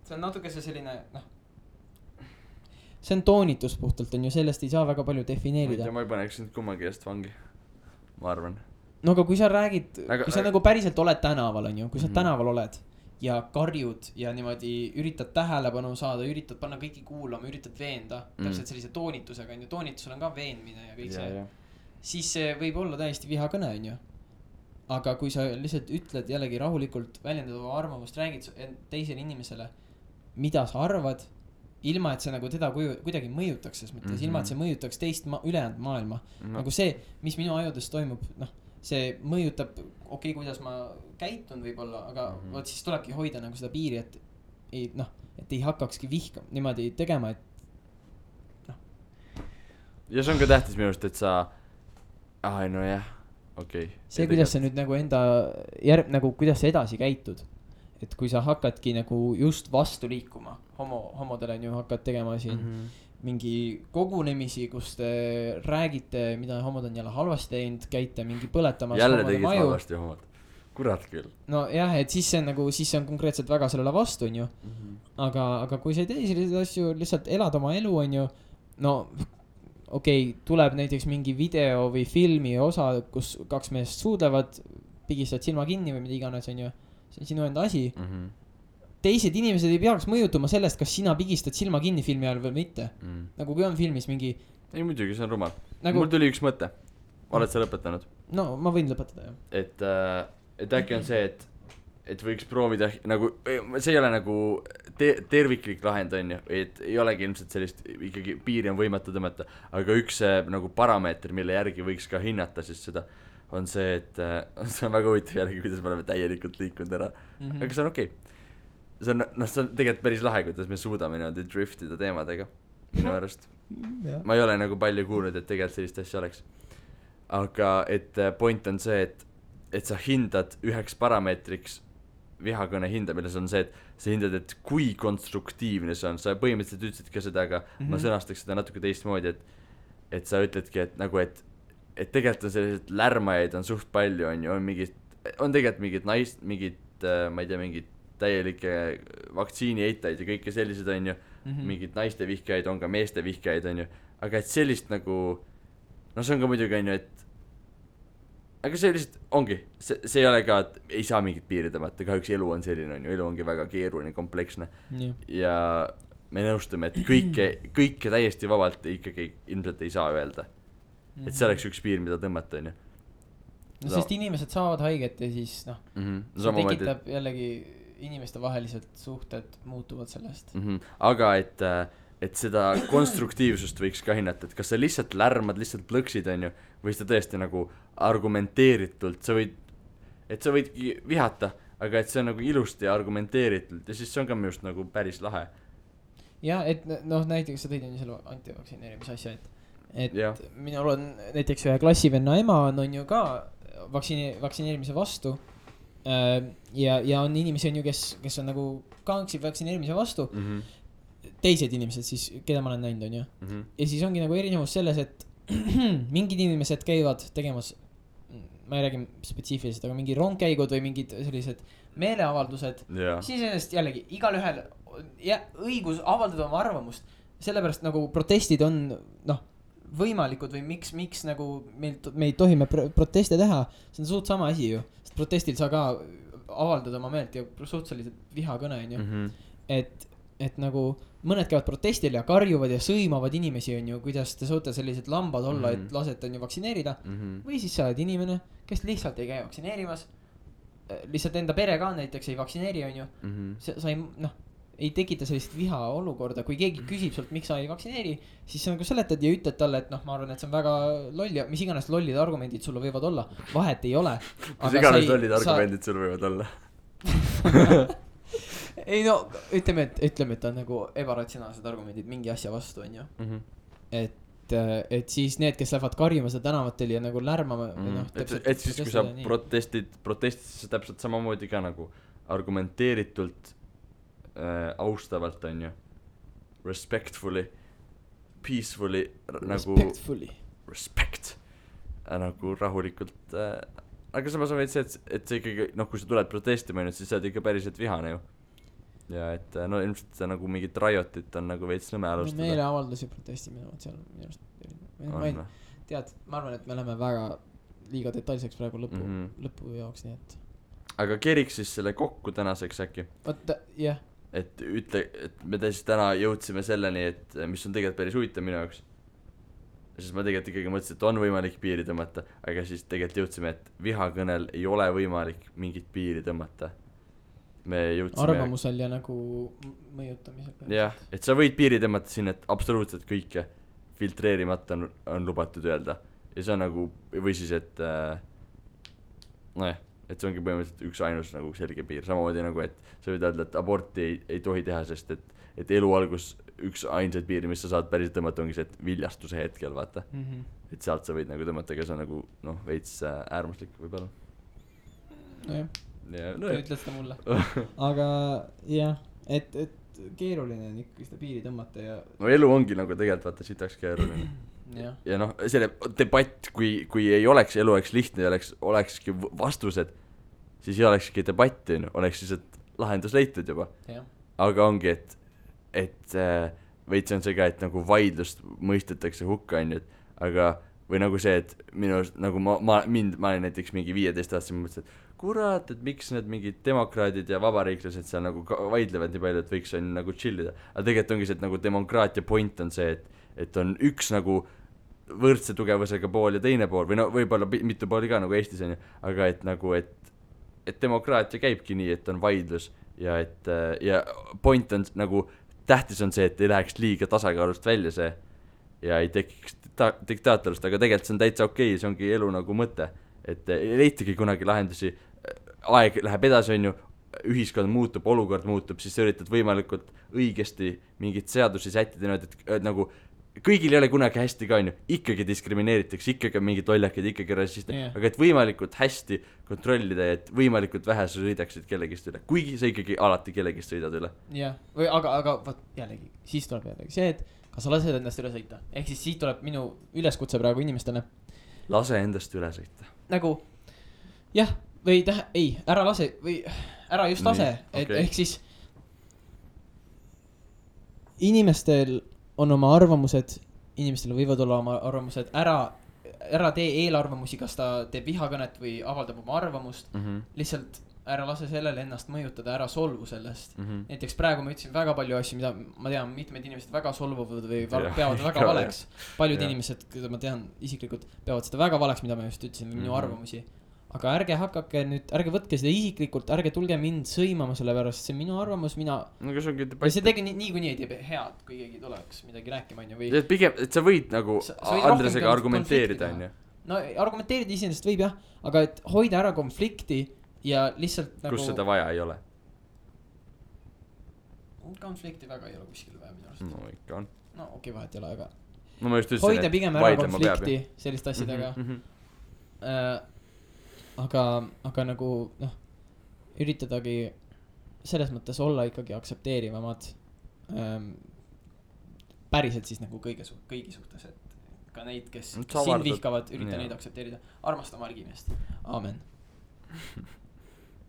See on natuke see selline, see on toonitus puhtalt on ju, sellest ei saa väga palju defineerida.
ma ei paneks nüüd kummagi eest vangi, ma arvan.
No aga kui sa räägid, kui sa nagu päriselt oled tänaval on ju, kui sa tänaval oled ja karjud ja niimoodi üritad tähelepanu saada, üritad panna kõiki kuulama, üritad veenda, täpselt sellise toonitusega on ju, toonitusel on ka veenmine ja kõik see, siis see võib olla täiesti vihakõne on ju. Aga kui sa lihtsalt ütled jällegi rahulikult, väljendad oma arvamust, räägid teisele inimesele, mida sa arvad, ilma et see nagu teda kuidagi mõjutaks ses mõttes, ilma et see mõjutaks teist ülejäänud maailma. Nagu see, mis minu ajudes toimub, see mõjutab, okei, kuidas ma käitun võib-olla, aga võt siis tulebki hoida nagu seda piiri, et ei hakkakski vihkama niimoodi tegema, et
Ja see on ka tähtis minu arust, et sa nojah, okei.
See, kuidas sa nüüd nagu nagu kuidas sa edasi käitud, et kui sa hakkadki nagu just vastu liikuma homodele on ju, hakkad tegema siin mingi kogunemisi, kus te räägite, mida homod on jälle halvasti teinud, käite mingi põletamas
jälle tegid halvasti homod, kurat küll.
No jah, et siis see on nagu, siis see on konkreetselt väga sellele vastu on ju. Aga kui sa ei tee selliseid asju, lihtsalt elad oma elu on ju, no okei, tuleb näiteks mingi video või filmi osa, kus kaks meest suudlevad, pigistavad silma kinni või mida iganes on ju, see on sinu enda asi. Teised inimesed ei peaks mõjutuma sellest, kas sina pigistad silma kinni filmi ajal või mitte. Nagu kui on filmis mingi...
Ei muidugi, see on rumal. Mul tuli üks mõte. Oled sa lõpetanud?
No ma võin lõpetada, jah.
Et äkki on see, et võiks proovida nagu, see ei ole nagu terviklik lahend on ju, et ei olegi ilmselt sellist, ikkagi piiri on võimatu tõmmata, aga üks nagu parameeter, mille järgi võiks ka hinnata siis seda, on see, et see on väga huvitav järgi, kuidas me oleme täielikult liikunud ära, aga see on okei. See on tegelikult päris lahe, kuidas me suudame niimoodi driftida teemadega minu arust. Ma ei ole nagu palju kuulnud, et tegelikult sellist asja oleks. Aga et point on see, et sa hindad üheks parameetriks vihakõne hindamine, see on see, et sa hindad, et kui konstruktiivne see on. Sa põhimõtteliselt ütlesid ka seda, aga ma sõnastaks seda natuke teistmoodi, et sa ütledki, et nagu, et tegelikult on sellised lärmajaid on suht palju, on tegelikult mingid ma ei tea, mingid täielike vaktsiini eitajaid ja kõike sellised on ju, mingid naiste vihkajaid on ka meeste vihkajaid on ju, aga et sellist nagu, no see on ka muidugi on ju, et aga see lihtsalt ongi, see ei ole ka, et ei saa mingit piiri tõmmata, kahjuks elu on selline on ju, elu ongi väga keeruline, kompleksne ja me nõustume, et kõike täiesti vabalt ikkagi ilmselt ei saa öelda, et see oleks üks piir, mida tõmmata on ju.
No sest inimesed saavad haiget ja siis see tekitab jällegi inimeste vahelised suhted muutuvad sellest.
Aga et seda konstruktiivsust võiks ka hinnata, et kas sa lihtsalt lärmad, lihtsalt plõksid on ju, või sa tõesti nagu argumenteeritult, sa võidki vihata, aga et see on nagu ilusti argumenteeritult ja siis see on ka minust nagu päris lahe.
Ja et näiteks sa tõid on ju selle antivaktsineerimise asja, et minul on näiteks ühe klassivenna ema on ju ka vaktsineerimise vastu ja on inimesi on ju, kes on nagu kanksid vaktsineerimise vastu teised inimesed siis, keda ma olen näinud on ju ja siis ongi nagu erinevus selles, et mingid inimesed käivad tegemas, ma ei räägi spetsiifiliselt, aga mingi rongkäigud või mingid sellised meeleavaldused siis ennast jällegi igalühel õigus avaldada oma arvamust, sellepärast nagu protestid on võimalikud või miks nagu me ei tohi proteste teha, see on suht sama asi ju, sest protestil saa ka avaldada oma meelt ja suhteliselt vihakõne on ju, et nagu mõned käivad protestil ja karjuvad ja sõimavad inimesi on ju, kuidas te suute sellised lambad olla, et lasete on ju vaktsineerida või siis sa oled inimene, kes lihtsalt ei käi vaktsineerimas lihtsalt enda pere ka näiteks ei vaktsineeri, on ju. Sa ei, noh, ei tekita sellist viha olukorda, kui keegi küsib sult, miks sa ei vaktsineeri, siis sa nagu seletad ja ütled talle, et noh, ma arvan, et see on väga loll ja mis iganes lollid argumendid sulle võivad olla, vahet ei ole.
Mis iganes lollid argumendid sulle võivad olla?
Ei no, ütleme, et on nagu ebaratsionaalsed argumendid mingi asja vastu, on ju. Et siis need, kes lähevad karjuma seda tänavatel ja nagu lärmama
et siis kui sa protestid siis täpselt samamoodi ka nagu argumenteeritult austavalt, on ju, respectfully, peacefully nagu respect nagu rahulikult aga samas on veits see, et see ikkagi, noh, kui sa tuled protestima, siis sa oled ikka päriselt vihane ju. Ja et no ilmselt see nagu mingit rajotit on nagu veits nõme alustada.
No meeleavaldusi protestimine seal minu arust tead, ma arvan, et me läheme väga liiga detailseks praegu lõpu jaoks, nii et
aga keriks siis selle kokku tänaseks äkki?
Vaata, jah.
Et ütle, et me siis täna jõudsime selleni, et mis on tegelikult päris huvitav minu jaoks. Siis ma tegelikult ikkagi mõtlesin, et on võimalik piiri tõmmata, aga siis tegelikult jõudsime, et vihakõnel ei ole võimalik mingit piiri tõmmata. Me jõudsime
arvamusel ja nagu mõjutamisel.
Jah, et sa võid piiri tõmmata siin, et absoluutselt kõike filtreerimata on lubatud öelda. Ja see on nagu, või siis, et nojah, et see ongi põhimõtteliselt üks ainus nagu selge piir. Samamoodi nagu, et sa võid öelda, et aborti ei tohi teha, sest et elu algus üks ainsaid piiri, mis sa saad päriselt tõmmata, ongi see, et viljastuse hetkel, vaata. Et sealt sa võid nagu tõmmata, aga see on nagu, noh, veits äärmuslik võib-olla.
Nojah, ütle seda mulle. Aga jah, et keeruline on ikkagi seda piiri tõmmata ja
no elu ongi nagu tegelikult vaata sitaks keeruline. Ja noh, selle debatt, kui ei oleks, elu oleks lihtne ja olekski vastused, siis ei olekski debatti, oleks siis, et lahendus leitud juba. Aga ongi, et veits on see ka, et nagu vaidlust mõistetakse hukka, aga või nagu see, et minu nagu ma olin näiteks mingi 15 aastaselt, ma mõtlesin, et kurat, et miks need mingid demokraadid ja vabariiklased seal nagu vaidlevad nii palju, et võiks on nagu chillida. Aga tegelikult ongi see, et nagu demokraatia point on see, et on üks nagu võrdse tugevusega pool ja teine pool, või no võib-olla mitu pooli ka nagu Eestis on ju, aga et nagu, et demokraatia käibki nii, et on vaidlus ja et ja point on nagu, tähtis on see, et ei läheks liiga tasakaalust välja see ja ei tekiks diktaatorust, aga tegelikult see on täitsa okei, see ongi elu nagu mõte, et ei leitagi kunagi lahendusi, aeg läheb edasi, on ju, ühiskond muutub, olukord muutub, siis sa üritad võimalikult õigesti mingit seadusi sättida, et nagu kõigil ei ole kunagi hästi ka, on ju, ikkagi diskrimineeritakse, ikkagi on mingid lollakid, ikkagi rassist, aga et võimalikult hästi kontrollida ja et võimalikult vähe sa sõidaksid kellegist üle, kuigi sa ikkagi alati kellegist sõidad üle.
Jah, või aga võt, jällegi, siis tuleb jällegi see, et kas sa lased endast üle sõita, ehk siis siit tuleb minu üleskutse praegu inimestele.
Lase endast üle sõita.
Nagu, jah, või ei, ära lase, või ära just lase, et okay. Ehk siis inimestel on oma arvamused, inimestel võivad olla oma arvamused, ära tee eelarvamusi, kas ta teeb vihakõnet või avaldab oma arvamust, lihtsalt ära lase sellele ennast mõjutada, ära solvu sellest. Näiteks praegu ma ütlesin väga palju asju, mida ma tean, mitmed inimesed väga solvuvad või peavad väga valeks. Paljud inimesed, keda ma tean isiklikult, peavad seda väga valeks, mida ma just ütlesin, minu arvamusi. Aga ärge hakake nüüd, ärge võtke seda isiklikult, ärge tulge mind sõimama selle pärast, see minu arvamus, ja see tegi nii kui nii ei tee head, kui keegi tuleks midagi rääkima, on ju, või
pigem, et sa võid nagu Andresega argumenteerida, on ju.
No argumenteerida iseenesest võib jah, aga et hoida ära konflikti ja lihtsalt nagu
kus seda vaja ei ole?
Konflikti väga ei ole kuskil vaja minu arust.
No ikka on.
No okei, vahet ei ole, aga
no, ma just ütlesin,
hoida pigem ära konflikti selliste asjadega. Aga nagu noh, üritadagi selles mõttes olla ikkagi aktsepteerivamad päriselt siis nagu kõigi suhtes, et ka neid, kes sind vihkavad, ürita neid aktsepteerida. Armasta oma argimeest. Aamen.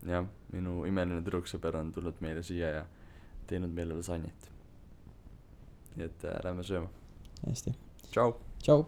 Jah, minu imeline tüdruksõber on tulnud meile siia ja teinud meile lasanjit. Nii et lähme sööma.
Hästi.
Tšau.
Tšau.